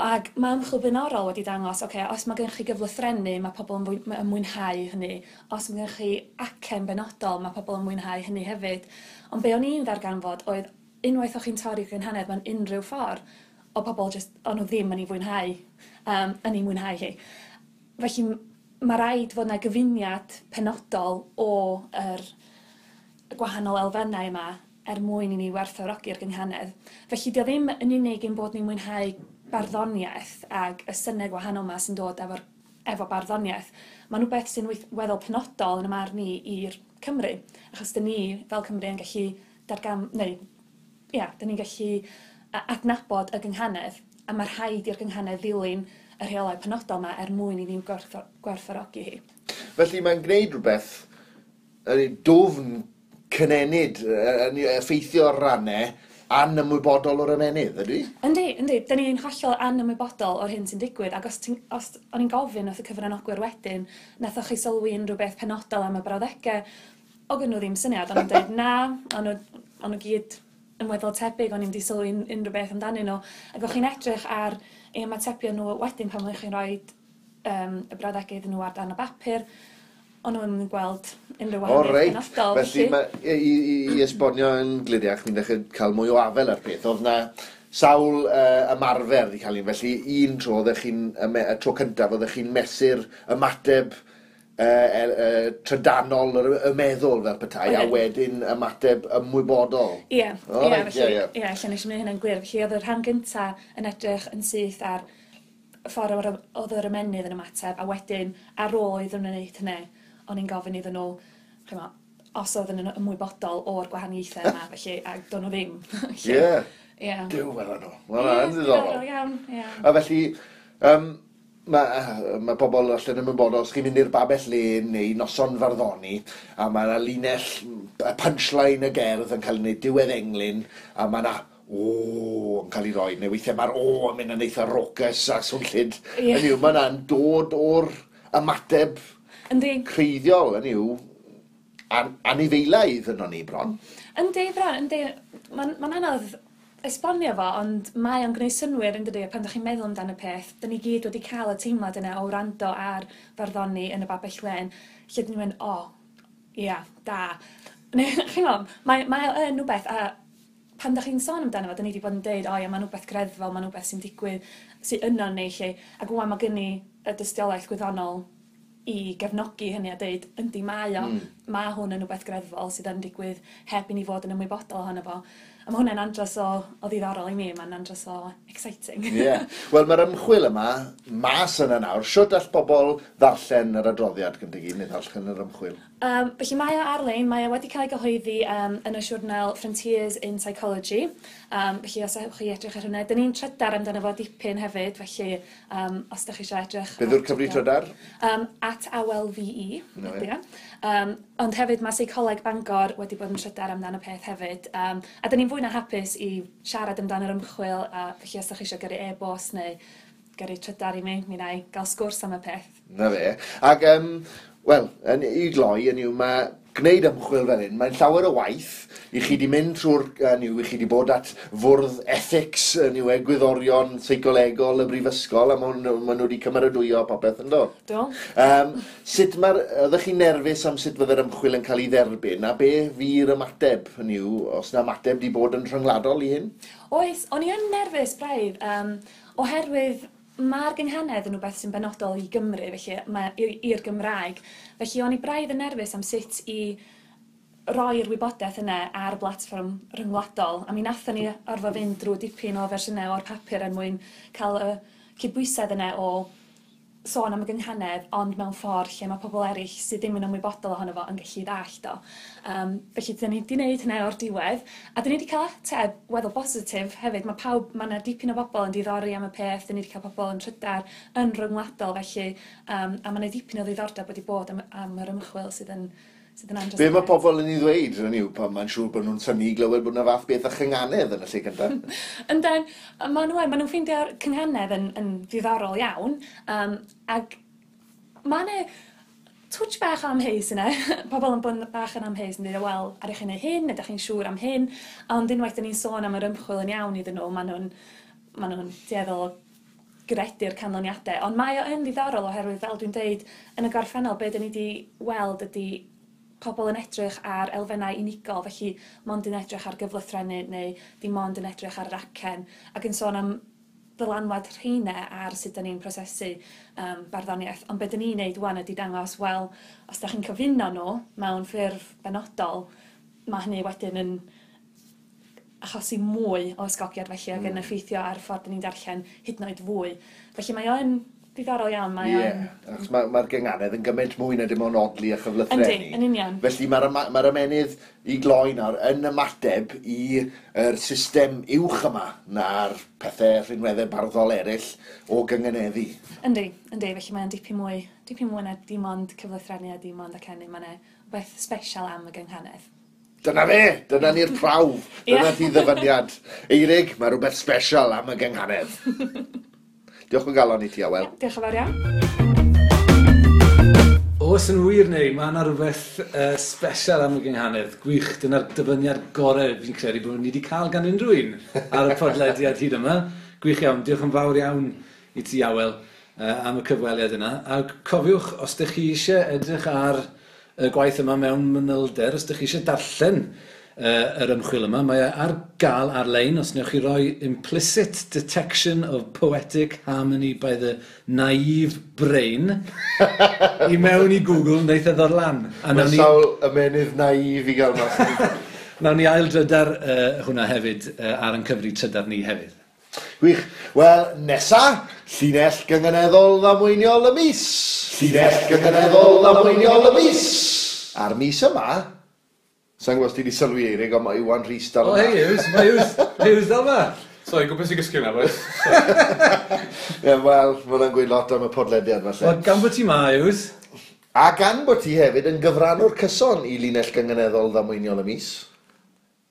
Ac mae ymchwil blaenorol wedi dangos, oce, os mae gennych chi gyflythrennu, mae pobl yn mwynhau hynny. Os mae gennych chi acen benodol, mae pobl yn mwynhau hynny hefyd. Ond be o'n i'n ddarganfod oedd, unwaith o'ch chi'n torri gynghanedd mewn unrhyw ffordd, o pobl just, o'n nhw ddim yn ei fwynhau, yn ei mwynhau hi. Felly, mae rhaid fod yna gyfuniad penodol o yr gwahanol elfennau yma er mwyn i ni werthfawrogi'r gynghanedd. Felly, dio ddim yn unig ein bod ni'n mwynhau barddoniaeth ag y synnau gwahanol yma sy'n dod efo barddoniaeth. Mae'n rhywbeth sy'n weddol penodol yn y marn ni i'r Cymru, achos dyn ni fel Cymru yn gallu neu, ia, dyn ni'n gallu adnabod y gynghanedd, a mae rhaid i'r gynghanedd ddilyn y rheolau penodol yma er mwyn i ni'n gwerthfawrogi hi. Felly mae'n gwneud rhywbeth dwfn cynenid, yn effeithio ar rannau anymwybodol o'r ymennydd, ydy? Yndi, yndi. Dyn ni'n hollol anymwybodol o'r hyn sy'n digwydd, ac os o'n i'n gofyn wrth y cyfranogwyr wedyn, nathoch chi sylwi unrhyw beth penodol am y brawddegau, o gyn nhw ddim syniad, o'n nhw'n dweud na, o'n nhw gyd yn weddol tebyg, o'n i'n di sylwi unrhyw beth amdanyn nhw. Ac o'ch chi'n edrych ar eu ymatebion nhw wedyn pan o'ch chi'n rhoi y brawddegau iddyn nhw ar dan y bapur, o'n nhw'n gweld unrhyw wahaniaeth penodol. Felly, i esbonio yn gliriach, mi'n dechrau cael mwy o afel ar peth. Oedd na sawl ymarfer wedi cael un, felly un tro oeddech chi'n, y tro cyntaf oeddech chi'n mesur ymateb trydanol y meddwl fel petai, a wedyn ymateb ymwybodol. Ie, felly, ie, lle nes i wneud hynny'n glir. Felly oedd y rhan gyntaf yn edrych yn syth ar y ffordd oedd yr ymennydd yn ymateb, a wedyn ar ôl iddyn nhw wneud hynny, o'n i'n gofyn iddyn nhw, ch'mo, os oedden nhw'n ymwybodol o'r gwahaniaethau yma, felly, ac do'n nhw ddim. Ie. Ie. Duw, wel nhw. Wel, yn ddiddorol. Ie, iawn, ie. A felly, mae pobl allan yn ymwybodol, os chi'n mynd i'r babell lên neu noson farddoni, a mae yna linell, y punchline y gerdd yn cael ei wneud diwedd englyn, a mae yna o yn cael ei roi, neu weithiau mae'r o yn mynd yn eitha raucous a swnllyd. Hynny yw, mae yna'n dod o'r ymateb creiddiol, hynny yw, anifeilaidd yno ni bron. Yndi, bron, yndi. Mae'n anodd esbonio fo, ond mae o'n gwneud synnwyr, yn dydi, pan ydych chi'n meddwl amdano y peth, dyn ni gyd wedi cael y teimlad yna o wrando ar farddoni yn y babell lên, lle dyn ni'n mynd, o, ia, da. Neu, chi'n gwybod, mae o yn rhywbeth, a pan ydych chi'n sôn amdano fo, dyn ni wedi bod yn deud, o ia, mae'n rhywbeth greddfol, mae'n rhywbeth sy'n digwydd, sy'n yno ni, lle, ac ŵan mae gen i y dystiolaeth gwyddonol i gefnogi hynny a deud, yndi, mae o, mae hwn yn rhywbeth greddfol sydd yn digwydd heb i ni fod yn ymwybodol ohono fo. A mae hwnna'n andros o ddiddorol i mi, mae'n andros o exciting. Ie. Wel, mae'r ymchwil yma mas yna nawr. Shwt all bobl ddarllen yr adroddiad gyda gyd, neu ddarllen yr ymchwil? Felly mae o ar-lein, mae o wedi cael ei gyhoeddi yn y siwrnal Frontiers in Psychology. Felly os ewch chi edrych ar hwnna, dyn ni'n trydar amdano fo dipyn hefyd, felly os ydych chi eisiau edrych... Beth yw'r cyfri trydar? @awelve. No, ond hefyd mae Seicoleg Bangor wedi bod yn trydar amdano peth hefyd. A dyn ni'n fwy na hapus i siarad amdano'r ymchwil, a felly os ydych chi eisiau gyrru e-bost neu gyrru trydar i mi, mi wna i gael sgwrs am y peth. Na fe. Ac, wel, yn i gloi, yn yw, mae gwneud ymchwil fel hyn, mae'n llawer o waith i chi di mynd trwy'r, yn yw, i chi di bod at fwrdd ethics, yn yw, egwyddorion seicolegol y brifysgol, a maen nhw wedi cymeradwyo popeth yn do? Do. Sut mae'r, oeddech chi'n nerfus am sut fydde'r ymchwil yn cael ei dderbyn, a be fu'r ymateb, yn yw, os na ymateb di bod yn rhyngwladol i hyn? Oes, o'n i yn nerfus braidd, oherwydd mae'r gynghanedd yn rhywbeth sy'n benodol i Gymru, felly mae i'r Gymraeg. Felly o'n i braidd yn nerfus am sut i roi'r wybodaeth yna ar blatfform rhyngwladol. A mi nathon ni orfod fynd drwy dipyn o fersiynau o'r papur er mwyn cael y cydbwysedd yna o sôn am y gynghanedd, ond mewn ffordd lle mae pobl eraill sydd ddim yn ymwybodol ohono fo yn gallu ddallt o. Felly, dyn ni wedi gwneud hynna o'r diwedd, a dyn ni wedi cael ateb weddol bositif hefyd. Mae pawb, mae yna dipyn o bobl yn diddori am y peth, dyn ni wedi cael pobl yn trydar yn rhyngwladol, felly, a mae yna dipyn o ddiddordeb wedi bod am yr ymchwil sydd yn andros. Be mae pobl yn ei ddweud, yn yw, pan mae'n siŵr bod nhw'n synnu i glywed bod yna fath beth a chynghanedd yn y lle cyntaf? Ynden, maen nhw'n ffeindio'r cynghanedd yn ddiddorol iawn, ac mae yna twtsh bach o amheus yna. Pobl yn bod bach yn amheus yn dweud, wel, ar eich chi'n hyn, ydych chi'n siŵr am hyn, ond unwaith dyn ni'n sôn am yr ymchwil yn iawn iddyn nhw, maen nhw'n dueddol o gredu'r canlyniadau. Ond mae o yn ddiddorol oherwydd, fel dwi'n deud, yn y gorffennol, be dyn ni wedi weld ydy pobl yn edrych ar elfennau unigol, felly mond yn edrych ar gyflythrennu neu dim ond yn edrych ar yr acen, ac yn sôn am ddylanwad rheina ar sut 'dan ni'n prosesu barddoniaeth. Ond be 'dan ni'n neud ŵan ydy dangos, wel, os 'dach chi'n cyfuno nhw mewn ffurf benodol, mae hynny wedyn yn achosi mwy o ysgogiad felly ac yn effeithio ar ffordd 'dan ni'n darllen hyd yn oed fwy. Felly mae o yn diddorol iawn, mae o'n... Ie, achos mae'r gynghanedd yn gymaint mwy na dim ond odli a chyflythrennu. Yndi, yn union. Felly mae'r ymennydd i gloi nawr yn ymateb i'r system uwch yma na'r pethau rhinweddau barddol eraill o gynganeddu. Yndi, yndi, felly mae'n dipyn mwy na dim ond cyflythrennu a dim ond acennu. Mae'n beth special am y gynghanedd. Dyna fe! Dyna ni'r prawf! Dyna ti ddyfyniad. Eirig, mae rhywbeth special am y gynghanedd. Diolch o galon i ti, Awel. Diolch yn fawr iawn. Oes yn wir neu, mae yna rhywbeth special am y gynghanedd. Gwych, dyna'r dyfyniad gorau fi'n credu bod ni wedi cael gan unrhyw un ar y podlediad hyd yma. Gwych iawn, diolch yn fawr iawn i ti, Awel, am y cyfweliad yna. A cofiwch, os ydych chi eisiau edrych ar y gwaith yma mewn manylder, os ydych chi eisiau darllen yr ymchwil yma, mae e ar gael ar-lein os wnewch chi roi Implicit Detection of Poetic Harmony by the Naive Brain i mewn i Google, wneith e ddod lan. Mae sawl ymenydd naif i gael mas. Nawn ni ail drydar hwnna hefyd ar ein cyfri trydar ni hefyd. Gwych. Wel, nesa, llinell gynganeddol ddamweiniol y mis. Llinell gynganeddol ddamweiniol y mis. A'r mis yma, sa'n gwybod os ti wedi sylwi, Eirig, ond mae Iwan Rhys dal yma. O, hei, Yws, mae Yws dal yma. Sorry, gwybod sy'n gysgu yna, boys. Ie, wel, mae hwnna'n gweud lot am y podlediad, falle. Wel, gan bod ti ma, Yws. A gan bod ti hefyd yn gyfrannwr cyson i linell gynganeddol ddamweiniol y mis.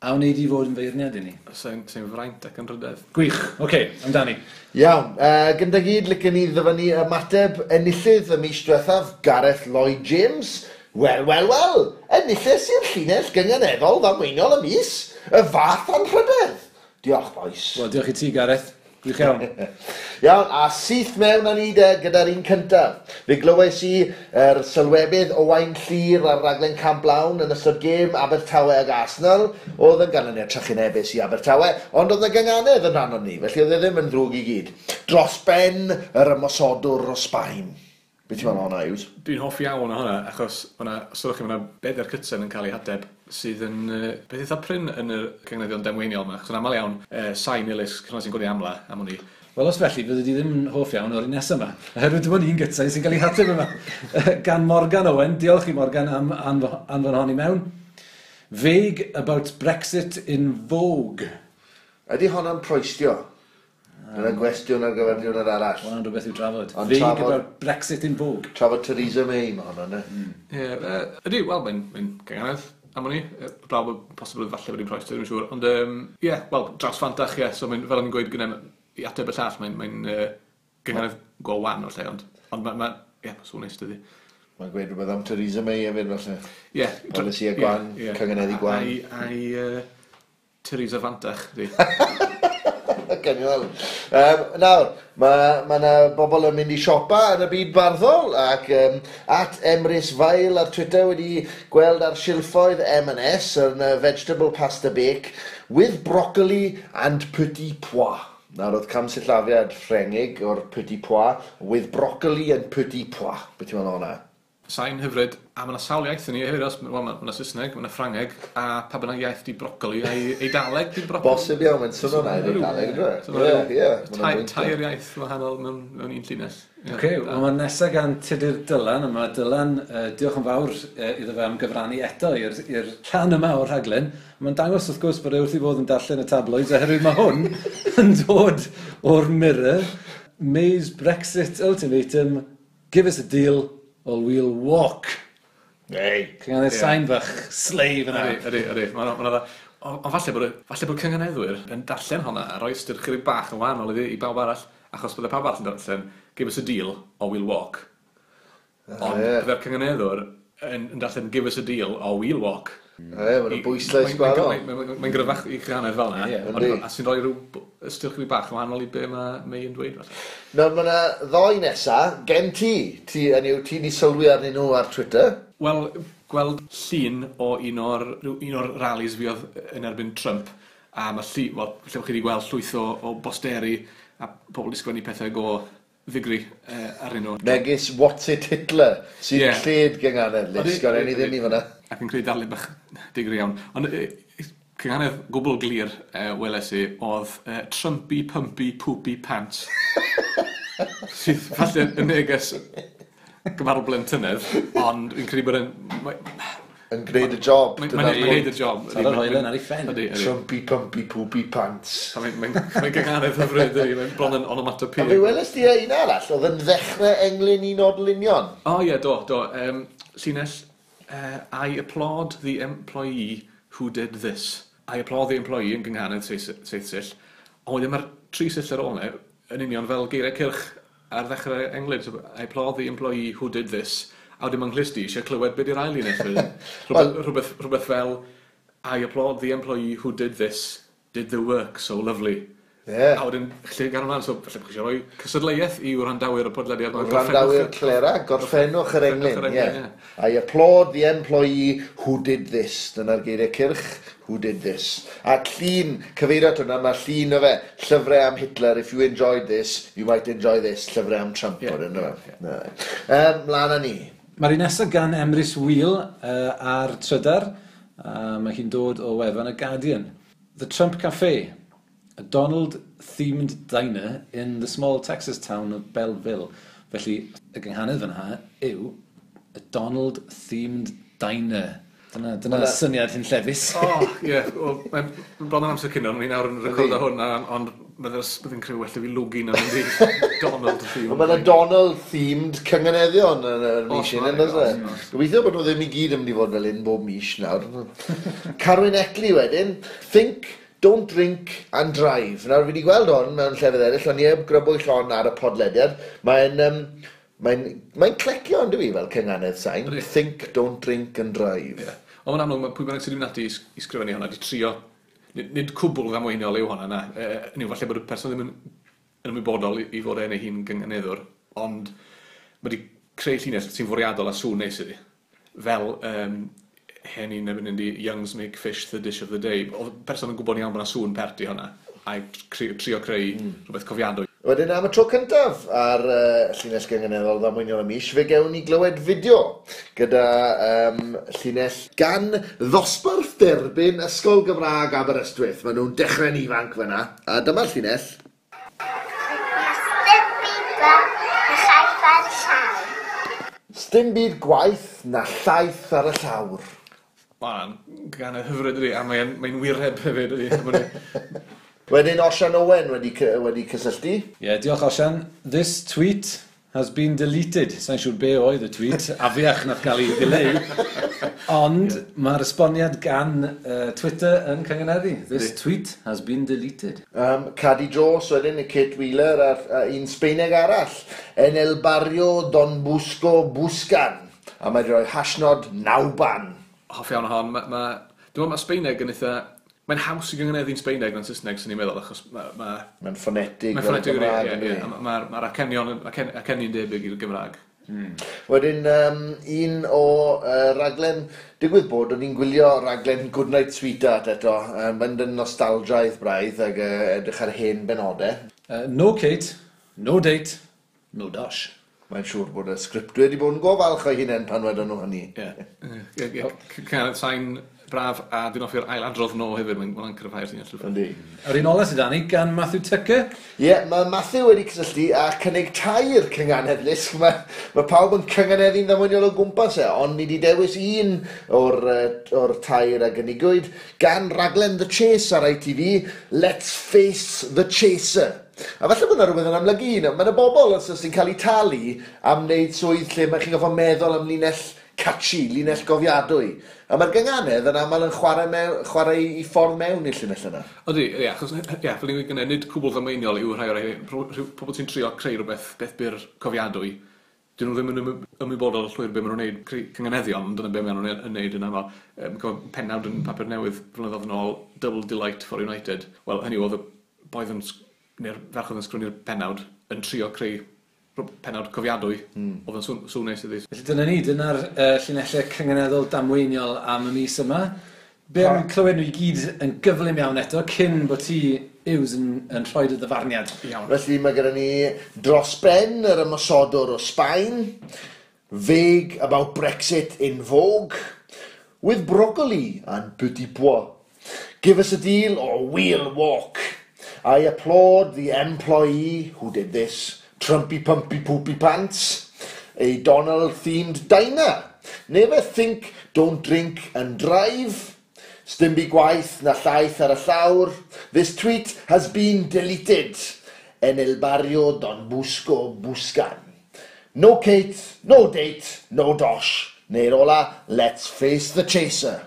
A wneud i fod yn feirniad i ni. Sy'n fraint ac yn rhydedd. Gwych, oce, amdani. Iawn, gyda gyd, licen ni ddyfynnu ymateb enillydd y mis diwethaf, Gareth Lloyd James. Wel, wel, wel, enillydd i'r llinell gynganeddol ddamweiniol y mis, y fath anrhydedd. Diolch, boys. Wel, diolch i ti, Gareth. Gwych iawn. Iawn, a syth mewn â ni de gyda'r un cyntaf. Fe glywes i yr sylwebydd Owain Llyr ar raglen Camp Lawn yn ystod gêm Abertawe ag Arsenal. Oedd yn ganlyniad trychinebus i Abertawe, ond oedd y gynganedd yn rhan o'n ni, felly oedd e ddim yn ddrwg i gyd. Dros ben yr ymosodwr o Sbaen. Be ti'n meddwl o hwnna, Yws? Dwi'n hoffi iawn o hwnna, achos os ydych chi, mae yna bedair cytsen yn cael ei hadeb sydd yn beth eitha prin yn y cynganeddion damweiniol yma, achos yn aml iawn, sain ilys, cynnwys sy'n gwneud amla, am hwn i. Wel, os felly, fydde di ddim yn hoff iawn o'r un nesaf yma. Oherwydd dim ond un gytsau sy'n cael ei hateb yma. Gan Morgan Owen, diolch i Morgan am anfon hon i mewn. Vague about Brexit in Vogue. Ydy honna'n proestio? Dyna gwestiwn ar gyfer diwrnod arall. Hwna'n rhywbeth i'w drafod. Ond Vague about Brexit in Vogue. Trafod Theresa May mae hwnna, ne? Ie, ydy, wel, mae'n gynghanedd am hwnni. Blaw bod posibl falle bod hi'n proestio, dwi'n siŵr. Ond, ie, wel, draws fantach, ie. So, fel o'n i'n gweud gyda i ateb y llall, mae'n gynghanedd go wan o'r lle, ond mae, ie, mae'n sŵn neis, dydi. Mae'n gweud rhywbeth am Theresa May hefyd, falle. Ie. Polisi a gwan, cynghaneddu gwan. A'i Theresa Fantach, di. Genial. Nawr, mae yna bobl yn mynd i siopa yn y byd barddol ac at Emrys Fail ar Twitter wedi gweld ar silffoedd M&S yn vegetable pasta bake with broccoli and petit pois. Nawr, oedd camsillafiad Ffrengig o'r petit pois with broccoli and petit pois. Beth ti'n meddwl hwnna? Sain hyfryd, a mae yna sawl iaith yn ni hefyd, os, wel, mae yna Saesneg, mae yna Ffrangeg, a pa bynnag iaith di brocoli, a Eidaleg di brocoli. Bosib iawn, mae'n swnio na i'r Eidaleg, ydw? Ie, Tair iaith wahanol mewn un llinell. Oce, wel mae nesaf gan Tudur Dylan, a mae Dylan, diolch yn fawr iddo fe am gyfrannu eto i'r rhan yma o'r rhaglen. Mae'n dangos wrth gwrs bod e wrth ei fod yn darllen y tabloids, oherwydd mae hwn yn dod o'r Mirror. May's Brexit ultimatum, give us a deal, or we'll walk. Ei. Cynghanedd sain fach, slave yna. Ydy, ydy. Mae'n dda. Ond falle bod cynghaneddwyr yn darllen hwnna a rhoi ystyr chydig bach yn wahanol iddi i bawb arall, achos bydde pawb arall yn darllen, give us a deal or we'll walk. Ond bydde'r cynghaneddwr yn darllen give us a deal or we'll walk. Ie, mae'n bwyslais gwahanol. Mae'n gryfach i chynghanedd fel yna, a sy'n rhoi rhyw ystyr chydig bach yn wahanol i be mae May yn dweud. Nawr, mae yna ddoi nesa, gen ti, ti, hynny yw, ti di sylwi arnyn nhw ar Twitter. Wel, gweld llun o un o'r rallies fi oedd yn erbyn Trump, a mae llu, wel, lle chi wedi gweld llwyth o bosteri a pobl wedi sgwennu pethau go ddigri arnyn nhw. Megis What's It Hitler, sy'n lled gynghanedd, Lis, gan ni ddim i fyna. Ac yn creu darlun bach digri iawn. Ond cynghanedd gwbl glir weles i oedd Trumpy Pumpy Poopy Pants. Sydd falle yn neges gymharol blentynedd, ond fi'n credu bod yn Yn gwneud y job. Mae'n gwneud y job. Taro'r hoelen ar ei phen. Trumpy Pumpy Poopy Pants. Mae'n gynghanedd hyfryd, mae'n bron yn onomatopoeia. A fe weles di un arall, oedd yn ddechrau englyn un o'r lunion? O ie, do, do. Llinell, I applaud the employee who did this. I applaud the employee yn gynghanedd seith sill. Ond wedyn mae'r tri sill ar ôl 'na yn union fel geiriau cylch ar ddechrau englyn. So, I applaud the employee who did this. A wedyn mae'n nghlust i eisiau clywed beth yw'r ail un. Rhywbeth fel I applaud the employee who did this, did the work so lovely. Yeah. A wedyn, lle gan ymlaen, so falle bod chi eisiau rhoi cystadleuaeth i wrandawyr y podlediad. Wrandawyr Clera, gorffennwch yr englyn. Yeah. I applaud the employee who did this. Dyna'r geiriau cyrch, who did this. A llun, cyfeirio at hwnna, mae llun o fe, llyfrau am Hitler, if you enjoyed this, you might enjoy this, llyfrau am Trump. Yeah. Mlaen â ni. Mae'r un nesaf gan Emrys Wheel ar Trydar. Mae hi'n dod o wefan y Guardian. The Trump Cafe, a Donald-themed diner in the small Texas town of Belleville. Felly, y gynghanedd fan'na yw a Donald-themed diner. Dyna syniad hunllefus. O, ie. Mae'n bron yn amser cino, ni nawr yn recordo hwn, ond bydd yn creu well i fi lwgu na mynd i Donald-themed. Mae yna Donald-themed cynganeddion yn y mis hyn, yn does e? Gobeithio bod nhw ddim i gyd yn mynd i fod fel un bob mis nawr. Carwyn Eckley wedyn, think, don't drink and drive. Nawr, fi wedi gweld hwn mewn llefydd eraill, ond i heb grybwyll hon ar y podlediad. Mae'n clecio, ond i fel cynganedd sain. Think, don't drink and drive. Yeah. Ond mae'n amlwg, mae pwy bynnag sydd wedi mynd ati i sgrifennu hwnna, wedi trio, nid cwbl ddamweiniol yw hwnna, na. Yw, falle bod y person ddim yn ymwybodol i fod e'n ei hun gynganeddwr, ond mae wedi creu llinell sy'n fwriadol a sŵn neis iddi. Fel hen un yn mynd i Youngs make fish the dish of the day. Oedd person yn gwybod iawn bod yna sŵn pert i hwnna, a trio creu rhywbeth cofiadwy. Wedyn am y tro cyntaf ar llinell gynganeddol ddamweiniol y mis, fe gewn ni glywed fideo gyda llinell gan ddosbarth derbyn Ysgol Gymraeg Aberystwyth. Maen nhw'n dechrau'n ifanc fyna, a dyma'r llinell. na llaeth ar y llawr. Sdim byd gwaith na llaeth ar y llawr. Mae'n gan y hyfryd ydi, a mae'n mae wireb hefyd ydi. Wedyn Osian Owen wedi cysylltu. Ie, yeah, diolch Osian. This tweet has been deleted. Sa'n siŵr be oedd y tweet, afiach nath gael ei ddileu. Ond yeah, mae'r esboniad gan Twitter yn cyngeneddu. This tweet has been deleted. Cadi Jones wedyn, y Kate Wheeler a'r un Sbeineg arall. En el barrio Don Busco Buscan. A mae wedi rhoi hashnod nawban. Hoff iawn o hon. Dwi'n meddwl mae Sbeineg yn eitha... Mae'n haws i gyngeneddu'n Sbeineg na'n Saesneg, sy'n ni'n meddwl, achos mae'n ffonetig. Mae'n ffonetig, ie. Ie. Mae'r acenion debyg i'r Gymraeg. Wedyn, un o raglen, digwydd bod, o'n i'n gwylio raglen Goodnight Sweetheart eto, mynd yn nostalgiaidd braidd ac edrych ar hen benodau. No Kate, no date, no dosh. Mae'n siŵr bod y sgriptwyr wedi bod yn go falch o'i hunain pan wedon nhw hynny. Ie. Cynganedd sain braf, a dwi'n hoffi'r ailadrodd no hefyd, mae'n cryfhau'r llinell. Yndi. Yr un ola sydd â ni gan Matthew Tucker. Ie, yeah, mae Matthew wedi cysylltu a cynnig tair cynganedd lusg. Mae pawb yn cynganeddu'n ddamweiniol o gwmpas e, ond ni wedi dewis un o'r tair a gynigwyd gan raglen The Chase ar ITV, Let's Face the Chaser. A falle bod yna rhywbeth yn amlygu un. Mae yna bobl os sy'n cael eu talu am wneud swydd lle mae chi'n gofio meddwl am linell catchy, linell gofiadwy. A mae'r gynganedd yn aml yn chwarae i ffordd mewn i'r llinell yna. Ydy, ie, achos, ie, fel ni'n gweud, nid cwbl ddamweiniol yw rhai o'r rhai, pobl sy'n trio creu rhywbeth beth byr cofiadwy, dyn nhw ddim yn ymwybodol llwyr be maen nhw'n neud, creu cynganeddion, ond dyna be maen nhw'n neud yn aml. Pennawd yn papur newydd flynyddoedd yn ôl, Double Delight for United. Wel, hynny oedd y boi yn, neu'r ferch oedd yn sgrwni'r pennawd, yn trio creu pennawd cofiadwy, oedd yn sŵn neis iddi. Felly dyna ni, dyna'r llinellau cynganeddol damweiniol am y mis yma. Be am clywed nhw i gyd yn gyflym iawn eto, cyn bod ti, Yws, yn rhoi dy ddyfarniad. Iawn. Felly mae gyda ni dros ben yr ymosodwr o Sbaen, vague about Brexit in vogue, with broccoli and petit pois. Give us a deal or we'll walk. I applaud the employee who did this. Trumpy Pumpy Poopy Pants, a Donald-themed diner. Never think, don't drink and drive. Sdim byd gwaith na llaeth ar y llawr. This tweet has been deleted. En el barrio Don Busco Buscan. No Kate, no date, no dosh. Neu'r ola, let's face the chaser.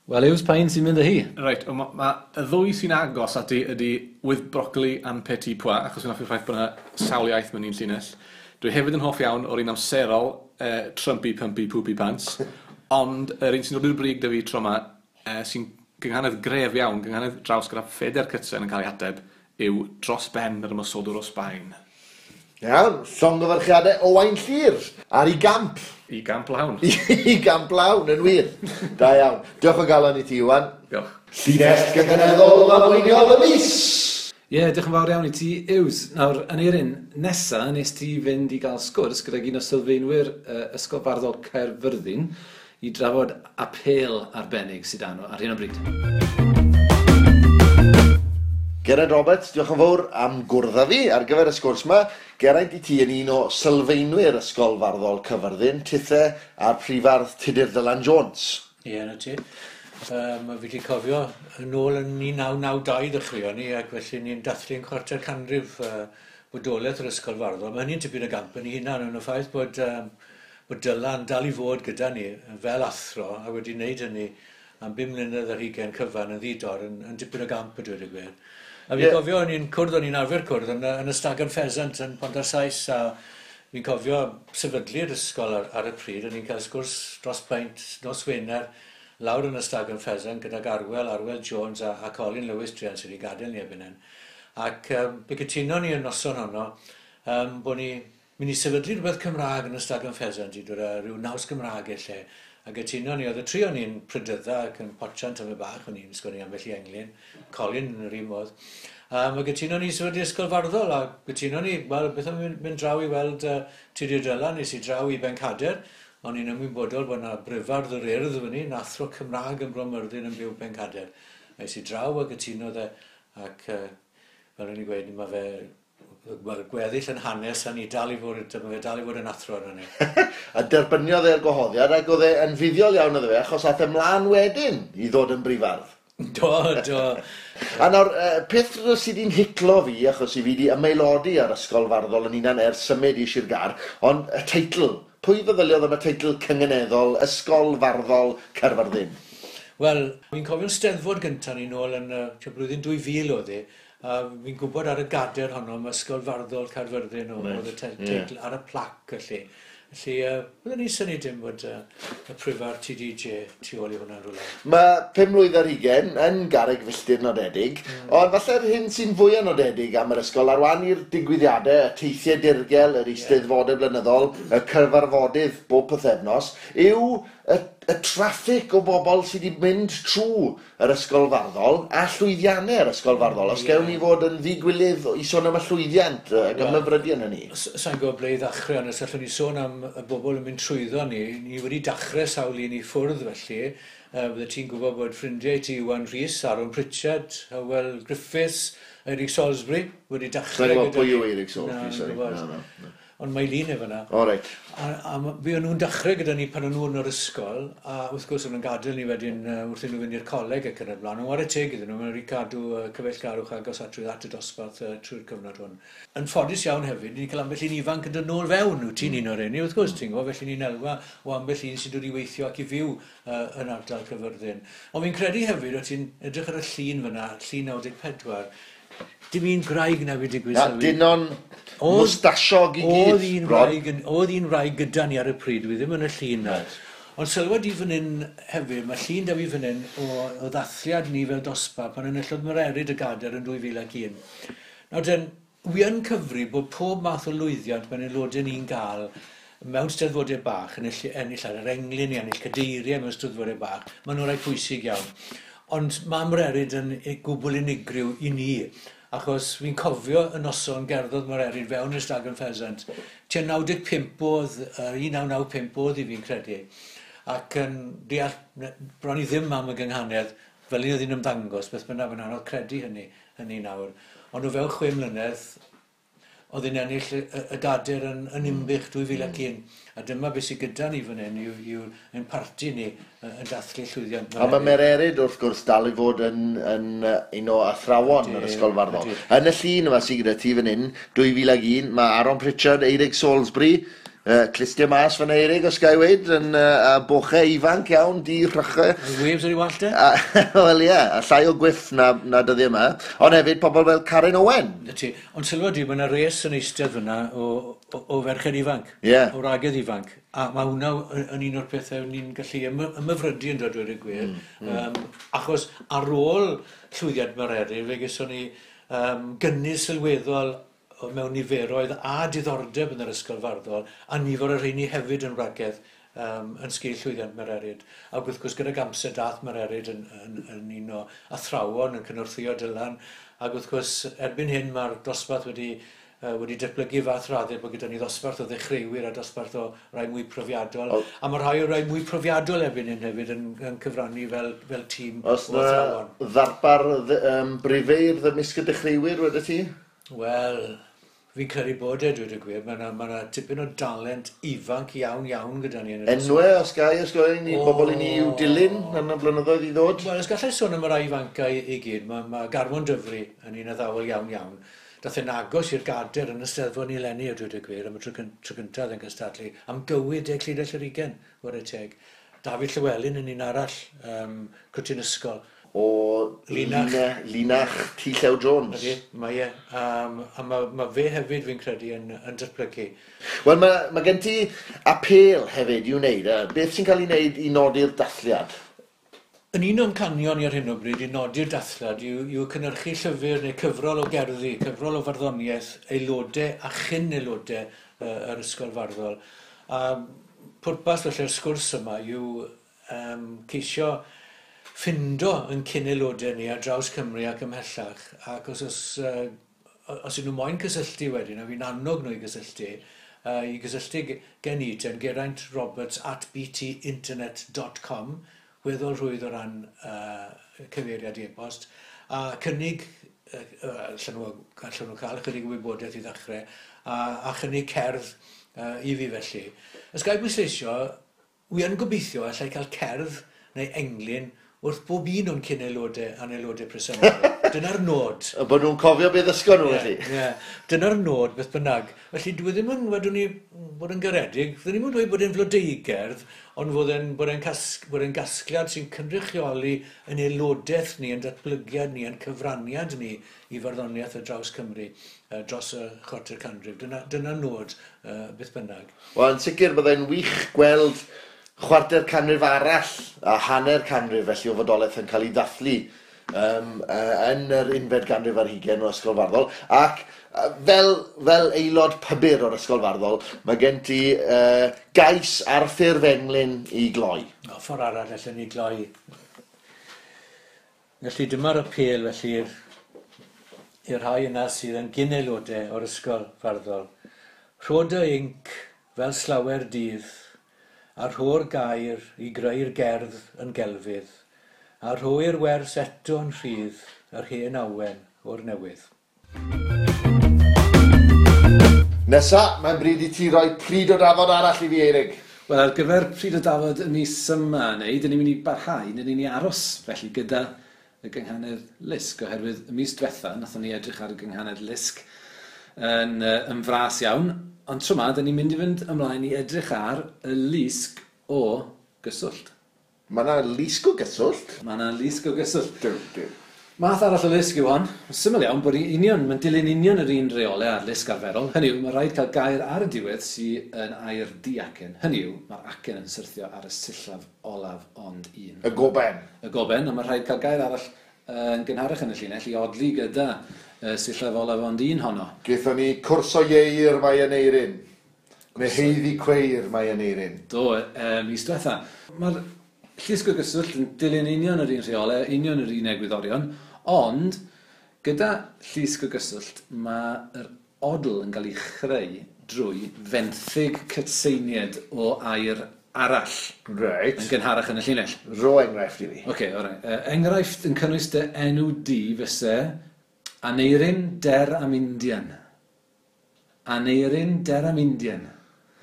Wel, Yws, pa un sy'n mynd â hi? Reit, ma y ddwy sy'n agos ati ydy with broccoli and petit pois, achos fi'n hoffi'r ffaith bod yna sawl iaith mewn un llinell. Dwi hefyd yn hoff iawn o'r un amserol, Trumpy Pumpy Poopy Pants, ond yr un sy'n dod i'r brig da fi tro yma, sy'n gynghanedd gref iawn, gynghanedd draws gyda phedair cytsen yn cael ei ateb, yw dros ben yr ymosodwr o Sbaen. Iawn, llongyfarchiadau Owain Llyr ar ei gamp. I gamp lawn. I gamp lawn, yn wir. Da iawn. Diolch o galon i ti, Iwan. Diolch. Llinell gynganeddol ddamweiniol y mis! Ie, yeah, diolch yn fawr iawn i ti, Yws. Nawr, Aneurin, nesa nes ti fynd i gael sgwrs gydag un o sylfaenwyr Ysgol Farddol Caerfyrddin i drafod apêl arbennig sydd â nhw ar hyn o bryd. Geraint Roberts, diolch yn fawr am gwrdd â fi ar gyfer y sgwrs yma. Geraint, i ti yn un o sylfaenwyr Ysgol Farddol Cyfyrddin, tithe a'r prifardd Tudur Dylan Jones. Ie, na ti. Fi wedi cofio yn ôl yn 1992 ddechreuon ni, ac felly ni'n dathlu'n chwarter canrif bodolaeth yr Ysgol Farddol. Mae hynny'n tipyn o gamp yn ei hunan, yn y ffaith bod Dylan dal i fod gyda ni fel athro a wedi wneud hynny am 5 mlynedd ar hugain cyfan yn ddi-dor yn dipyn o gamp a dweud y gwir. A fi'n cofio, o'n i'n cwrdd, o'n i'n arfer cwrdd yn y Stag and Pheasant yn Pont-ar-Sais, a fi'n cofio sefydlu'r ysgol ar y pryd, o'n i'n cael sgwrs dros peint nos Wener lawr yn y Stag and Pheasant gydag Arwel Jones a Colin Lewis druan sydd wedi gadael ni erbyn hyn. Ac fe gytunon ni y noson honno bod ni mynd i sefydlu rhywbeth Cymraeg yn y Stag and Pheasant i dod â rhyw naws Gymraeg i'r lle. A gytunon ni, oedd y tri o'n i'n prydydda ac yn potsian tymed bach, o'n i'n sgwennu ambell i englyn, Colin yn yr un modd. A gytunon ni sefydlu Ysgol Farddol, a gytunon ni, wel, beth am mynd draw i weld Tudur Dylan, nes i draw i Bencader, o'n i'n ymwybodol bod yna brifardd yr Urdd fyny, yn athro Cymraeg yn Bro Myrddin yn byw Pencader. A es i draw a gytunodd e, ac fel o'n i'n gweud, mae fe Wel, gweddill yn hanes a ni dal i fod, mae fe dal i fod yn athro arno ni. A derbyniodd e'r gwahoddiad ac oedd e yn fuddiol iawn iddo fe achos aeth e mlaen wedyn i ddod yn brifardd. Do, do. A nawr, peth sydd wedi'n hiclo fi, achos i fi wedi ymaelodi ar Ysgol Farddol yn hunan ers symud i Sir Gâr, ond y teitl, pwy feddyliodd am y teitl cynganeddol Ysgol Farddol Caerfyrddin? Wel, fi'n cofio'n steddfod gyntaf ni nôl yn y blwyddyn 2000 oedd hi, a fi'n gwybod ar y gader honno am Ysgol Farddol Caerfyrddin oedd y teitl ar y plac felly. Felly, byddwn ni'n synnu dim bod y prifardd TDJ tu ôl i hwnna'n rhywle. Mae 25 mlwydd yn garreg filltir nodedig, ond falle'r hyn sy'n fwyaf nodedig am yr ysgol ar wahan i'r digwyddiadau, y teithiau dirgel, yr eisteddfodau blynyddol, y cyfarfodydd bob pythefnos, yw y traffig o bobl sydd wedi mynd trwy yr ysgol farddol a llwyddiannau yr ysgol farddol. Os gewn ni fod yn ddigwilydd i sôn am y llwyddiant ac ymhyfrydu yn hynny. Sa'n gwybod ble i ddechrau, ond os allwn ni sôn am y bobl yn mynd trwyddo ni, ni wedi dechrau sawl un i ffwrdd felly. Bydde ti'n gwybod bod ffrindiau ti Iwan Rhys, Aaron Pritchard, Hywel Griffiths, Eric Salisbury wedi dechrau. Sa'n gwybod pwy yw Eric Salisbury, sorry. Na, ond mae lun efo yna. O, reit. A fe o'n nhw'n dechrau gyda ni pan o'n nhw yn yr ysgol, a wrth gwrs o'n nhw'n gadael ni wedyn wrth iddyn nhw fynd i'r coleg ac yn y blaen. Ond whare teg iddyn nhw, maen nhw wedi cadw cyfeillgarwch agos at at y dosbarth trwy'r cyfnod hwn. Yn ffodus iawn hefyd, ni'n cael ambell un ifanc yn dod nôl fewn, wyt ti'n un o'r rheini, wrth gwrs, ti'n gwybod, felly ni'n elwa o ambell un sy'n dod i weithio ac i fyw yn ardal Caerfyrddin. Ond fi'n credu hefyd, o ti'n edrych ar y llun fyna, llun 94, dim un gwraig na fi digwydd sylwi. Dynon mwstasiog i gyd. Oedd un wraig gyda ni ar y pryd, dwi ddim yn y llun na. Ond sylwad i fan hyn hefyd, mae llun da fi fan hyn o ddathliad ni fel dosbarth pan enillodd Mererid y gader yn 2001. Nawr den, wi yn cyfri bod pob math o lwyddiant mae'n aelodau ni'n gael mewn steddfodau bach, yn ennill ar yr englyn, i ennill cadeiriau mewn steddfodau bach, maen nhw'n rhai pwysig iawn. Ond mae Mererid yn gwbl unigryw i ni, achos fi'n cofio y noson gerddodd Mererid fewn i'r Stag and Pheasant. Tua 95 oedd, 1995 oedd i fi'n credu, ac yn deall bron i ddim am y gynghanedd, fel un oedd hi'n ymddangos, beth bynnag, mae'n anodd credu hynny nawr. Ond o fewn 6 mlynedd, oedd hi'n ennill y gader yn Nimbych 2001. A dyma beth sydd gyda ni fan hyn yw ein parti ni yn dathlu llwyddiant. A mae Mererid wrth gwrs dal i fod yn un o athrawon yr Ysgol Farddol. Yn y llun yma sydd gyda ti fan hyn, 2001, mae Aaron Pritchard, Eirig Salisbury, clustia mas fan Eirig, os ga i weud, yn bochau ifanc iawn, di rhychau. Waves ar ei wallt e? Wel ie, a llai o gwyff na dyddiau yma. Ond hefyd pobl fel Karen Owen. Ti. Ond sylwa di, mae yna res yn eistedd fyna o ferched ifanc. O wragedd ifanc. A mae hwnna yn un o'r pethau ni'n gallu ymhyfrydu yn dod dweud y gwir. Achos ar ôl llwyddiant Mererid, fe geson ni gynnydd sylweddol mewn niferoedd a diddordeb yn yr ysgol farddol, a nifer o'r rheini hefyd yn wragedd yn sgil llwyddiant Mererid. Ac wrth gwrs gydag amser dath Mererid yn un o athrawon yn cynorthwyo Dylan, ac wrth gwrs erbyn hyn mae'r dosbarth wedi datblygu fath raddau bod gyda ni ddosbarth o ddechreuwyr a dosbarth o rai mwy profiadol. A mae rhai o rai mwy profiadol erbyn hyn hefyd yn cyfrannu fel tîm o athrawon. Os na ddarpar brifeirdd ymysg y dechreuwyr wedi ti? Wel, fi'n credu bod e, dweud y gwir. Mae yna tipyn o dalent ifanc iawn iawn gyda ni. Enwau, os gai, os gai ni, bobl i ni i'w dilyn yn y blynyddoedd i ddod? Wel, os gallai sôn am y rai ifancau i gyd, mae Garmon Dyfri yn un addawol iawn iawn. Dath e'n agos i'r gader yn y Steddfod ni eleni, a dweud y gwir, am y tro cyntaf yn cystadlu, am gywir 10 llinell yr 20, whare teg. Dafydd Llywelyn yn un arall, cwtyn ysgol. O Linach T. Llew Jones. Ydy, mae e. A mae fe hefyd, fi'n credu, yn datblygu. Wel, mae gen ti apêl hefyd i'w wneud. Beth sy'n cael ei wneud i nodi'r dathliad? Yn un o'n canion i ar hyn o bryd i nodi'r dathliad yw cynhyrchu llyfr neu cyfrol o gerddi, cyfrol o farddoniaeth, aelodau a chyn aelodau yr ysgol farddol. A pwrpas felly'r sgwrs yma yw ceisio ffindo yn cyn aelodau ni ar draws Cymru ac ymhellach, ac os ydyn nhw moyn cysylltu wedyn, a fi'n annog nhw i gysylltu, gen i ten geraintroberts@btinternet.com, weddol rhwydd o ran cyfeiriad e-bost, a cynnig allan nhw, allan nhw cael ychydig o wybodaeth i ddechrau, a chynnig cerdd i fi felly. Os ga i bwysleisio, wi yn gobeithio allai cael cerdd neu englyn wrth bob un o'n cyn aelodau a'n aelodau presennol. Dyna'r nod. A bod nhw'n cofio beth ddysgon nhw, felly. Ie, yeah. Dyna'r nod, beth bynnag. Felly dwi ddim yn, wedwn ni, bod yn garedig, dwi ddim yn dweud bod e'n flodeugerdd, ond fod e'n bod e'n bod e'n gasgliad sy'n cynrychioli yn aelodaeth ni, yn datblygiad ni, yn cyfraniad ni i farddoniaeth ar draws Cymru dros y chwarter canrif. Dyna nod, beth bynnag. Wel, yn sicr byddai'n wych gweld chwarter canrif arall a hanner canrif felly o fodolaeth yn cael ei ddathlu yn yr unfed ganrif ar hugain o Ysgol Farddol, ac fel aelod pybyr o'r Ysgol Farddol, mae gen ti gais ar ffurf englyn i gloi. O, ffordd arall allan ni gloi. Felly dyma'r apêl felly i'r rhai yna sydd yn gyn-aelodau o'r Ysgol Farddol. Rho dy inc fel slawer dydd, a rho'r gair i greu'r gerdd yn gelfydd, a rhoi'r wers eto'n rhydd yr hen awen o'r newydd. Nesa, mae'n bryd i ti roi pryd o dafod arall i fi, Eirig. Wel, ar gyfer pryd o dafod y mis yma, neu, dyn ni'n mynd i barhau, neu ni'n aros felly gyda y gynghanedd Lusg, oherwydd y mis diwetha, nathon ni edrych ar y gynghanedd Lusg yn fras iawn, ond tro 'ma, dyn ni'n mynd i fynd ymlaen i edrych ar y lusg o gyswllt. Mae yna lusg o gyswllt? Mae yna lusg o gyswllt. Duw, duw. Math arall o lusg yw hon. Syml iawn bod union, mae'n dilyn union yr un reolau a'r lusg arferol. Hynny yw, mae rhaid cael gair ar y diwedd sydd yn air diacen. Hynny yw, mae'r acen yn syrthio ar y sillaf olaf ond un. Y goben. Y goben, a mae rhaid cael gair arall yn gynharach yn y llinell i odli gyda sillaf olaf ond un honno. Gaethon ni cwrso ieir mae yn eirin. Neu heiddi cweir mae yn eirin. Do, mis diwetha. Mae'r llusg o gyswllt yn dilyn union yr un rheolau, union yr un egwyddorion, ond gyda llusg o gyswllt mae'r odl yn cael ei chreu drwy fenthyg cytseiniad o air arall. Reit. Yn gynharach yn y llinell. Rho enghraifft i fi. Oce, alright. Enghraifft yn cynnwys dy enw di fyse Aneirin Der am Indian. Aneirin Der am Indian.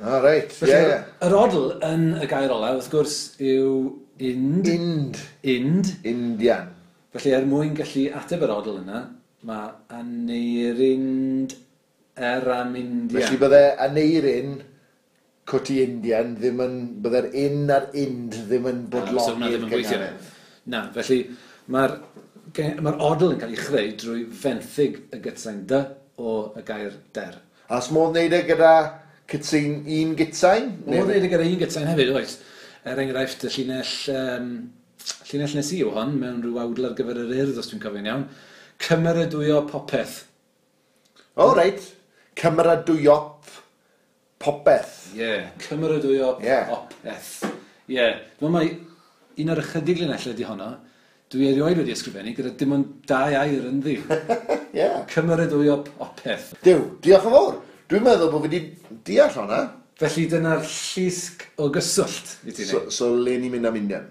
Ah, reit. Felly, Ie, ie. Yr odl yn y gair olaf, wrth gwrs, yw ind. Ind. Ind. Indian. Felly, er mwyn gallu ateb yr odl yna, mae Aneirin Er am Indian. Felly bydde Aneirin Cwti Indian ddim yn, bydde'r in a'r ind ddim yn bodloni'r ddim yn gweithio. gynghanedd. Na, felly mae'r odl yn cael ei chreu drwy fenthyg y gytsain dy o y gair der. A os modd wneud e gyda cytsain, un gytsain? Modd wneud e gyda un gytsain hefyd, oes. Er enghraifft, y llinell nes i yw hon, mewn rhyw awdl ar gyfer yr Urdd, os dwi'n cofio'n iawn. Cymeradwyo popeth. O, reit. Cymeradwyo popeth. Ie, cymeradwyo popeth. Ie, dwi'n meddwl mai un o'r ychydig linellau ydi honno, dwi erioed wedi ysgrifennu gyda dim ond dau air ynddi. Ie. Cymeradwyo popeth. Duw, diolch yn fawr. Dwi'n meddwl bod fi wedi deall hwnna. Felly dyna'r llusg o gyswllt i ti wneud. So le ni'n mynd am Indian?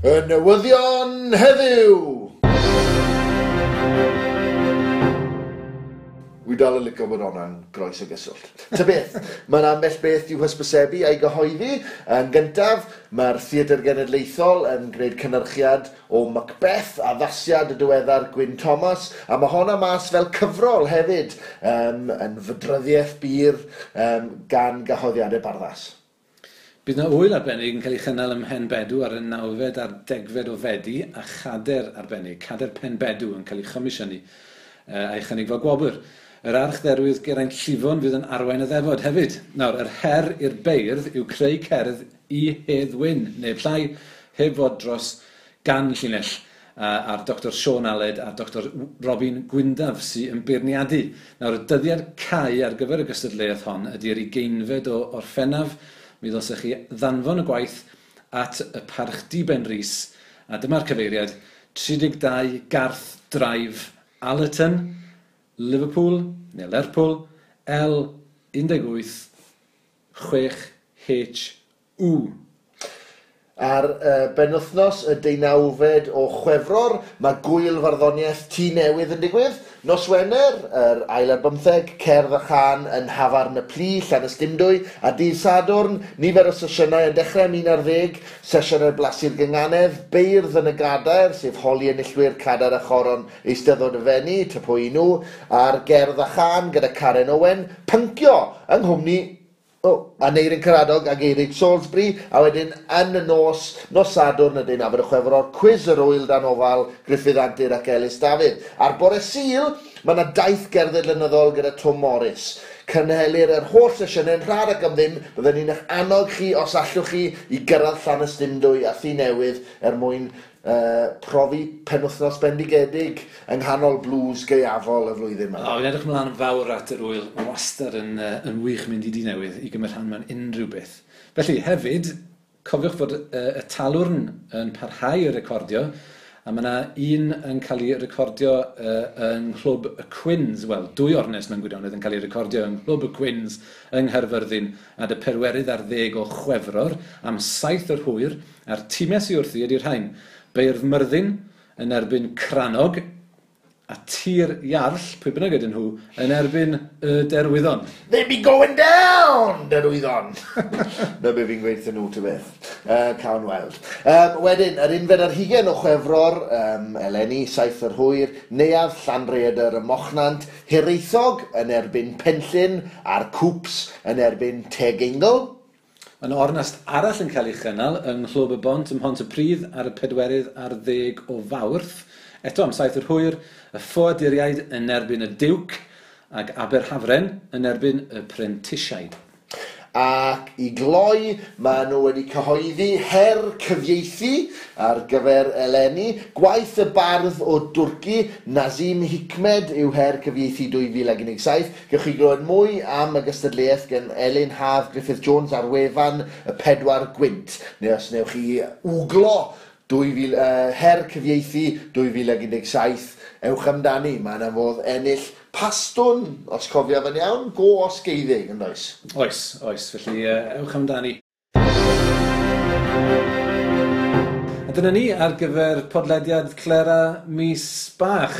Y newyddion heddiw! Wi dal yn licio bod hwnna'n groes o gyswllt. Ta beth, mae'n ambell beth i'w hysbysebu a'i gyhoeddi. Yn gyntaf, mae'r Theatr Genedlaethol yn gwneud cynhyrchiad o Macbeth, addasiad y diweddar Gwyn Thomas, a mae honna mas fel cyfrol hefyd, yn fydryddiaeth bur gan gyhoeddiadau Barddas. Bydd yna ŵyl arbennig yn cael ei chynnal ym Mhenbedw ar y 9fed a'r 10fed o Fedi, a chader arbennig, cader Penbedw yn cael ei chomisiynu a'i chynnig fel gwobr. Yr archdderwydd Geraint Llifon fydd yn arwain y ddefod hefyd. Nawr, yr her i'r beirdd yw creu cerdd i Hedd Wyn, neu llai, heb fod dros gan llinell, a'r Dr Siôn Aled a'r Dr Robin Gwyndaf sy'n yn beirniadu. Nawr, y dyddiad cau ar gyfer y gystadleuaeth hon ydy'r 20fed o Orffennaf. Mi ddylsech chi ddanfon y gwaith at y Parch Diben Rhys, a dyma'r cyfeiriad 32 Garth Drive, Allerton, Liverpool, neu Lerpwl, L18 6HU. Ar benwythnos y 19fed o Chwefror, mae gwyl farddoniaeth Tŷ Newydd yn digwydd. Nos Wener, yr ail ar bymtheg, Cerdd a Chân yn Nhafarn y Plu, Llanystumdwy, a dydd Sadwrn, nifer o sesiynau yn dechrau am 11, sesiynau blasu'r gynganedd, beirdd yn y gadair, sef holi enillwyr Cadair a Choron Eisteddfod y Fenni, ty pwy nhw, a'r Gerdd a Chân gyda Karen Owen, pyncio yng nghwmni Aneirin Karadog ac Eirig Salisbury, a wedyn yn y nos, nos Sadwrn y 19 o Chwefror, cwis yr wyl dan ofal Gruffydd Antur ac Elis Dafydd. A'r bore Sul, mae yna daith gerdded lenyddol gyda Tom Morris. Cynhelir yr holl sesiynau'n rhad ac am ddim, byddwn ni'n eich annog chi, os allwch chi, i gyrraedd Llanystumdwy a Thŷ Newydd er mwyn profi penwythnos bendigedig yng nghanol blues gaeafol y flwyddyn yma. O, fi'n edrych ymlaen yn fawr at yr wyl. Mae'n wastad yn, yn wych mynd i Dŷ Newydd i gymryd rhan mewn unrhyw beth. Felly, hefyd, cofiwch fod y talwrn yn parhau i recordio, a mae yna un yn cael ei recordio yng Nghlwb y Cwins, wel, dwy ornest mewn gwirionedd yn cael ei recordio yng Nghlwb y Cwins yng Nghaerfyrddin ar y 40 o Chwefror am 7 yr hwyr, a'r timau sydd wrthi ydy'r rhain. Beirdd Myrddin yn erbyn Crannog, a Tir Iarll, pwy bynnag ydyn nhw, yn erbyn y Derwyddon. They be going down, Derwyddon! Na be fi'n gweud nhw, ty beth. Cawn weld. Wedyn, yr 21 o Chwefror, eleni, 7 yr hwyr, Neuadd Llanrhaeadr y Mochnant, Hiraethog yn erbyn Penllyn, a'r Cŵps yn erbyn Tegeingl. Mae yna ornest arall yn cael ei chynnal yng Nghlwb y Bont ym Mhontypridd ar y 40 o Fawrth. Eto am 7 yr hwyr, y Ffoaduriaid yn erbyn y Duke ac Aberhafren yn erbyn y Prentisiaid. Ac i gloi, maen nhw wedi cyhoeddi her cyfieithu ar gyfer eleni. Gwaith y bardd o Dwrci, Nazim Hikmet, yw her cyfieithu 2017. Gewch chi glywed mwy am y gystadleuaeth gan Elin Haf Griffith Jones ar wefan y Pedwar Gwynt. Neu os newch chi wglo her cyfieithu 2017, ewch amdani. Mae yna fodd ennill pastwn, os cofiaf yn iawn, go osgeiddig, yn does? Oes, oes, felly ewch amdani. A dyna ni ar gyfer podlediad Clera mis bach.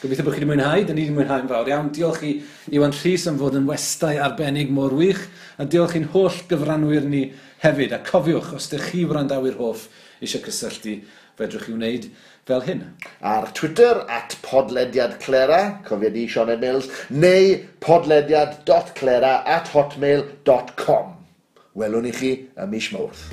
Gobeithio bod chi wedi mwynhau, dyn ni wedi mwynhau'n fawr iawn. Diolch i Iwan Rhys am fod yn westai arbennig mor wych, a diolch i'n holl gyfranwyr ni hefyd. A cofiwch, os ydych chi wrandawyr hoff eisiau cysylltu, fedrwch chi wneud fel hyn. Ar Twitter, @podlediadclera, cofia di Sioned Mills, neu podlediad.clera@hotmail.com. Welwn i chi ym mis Mawrth.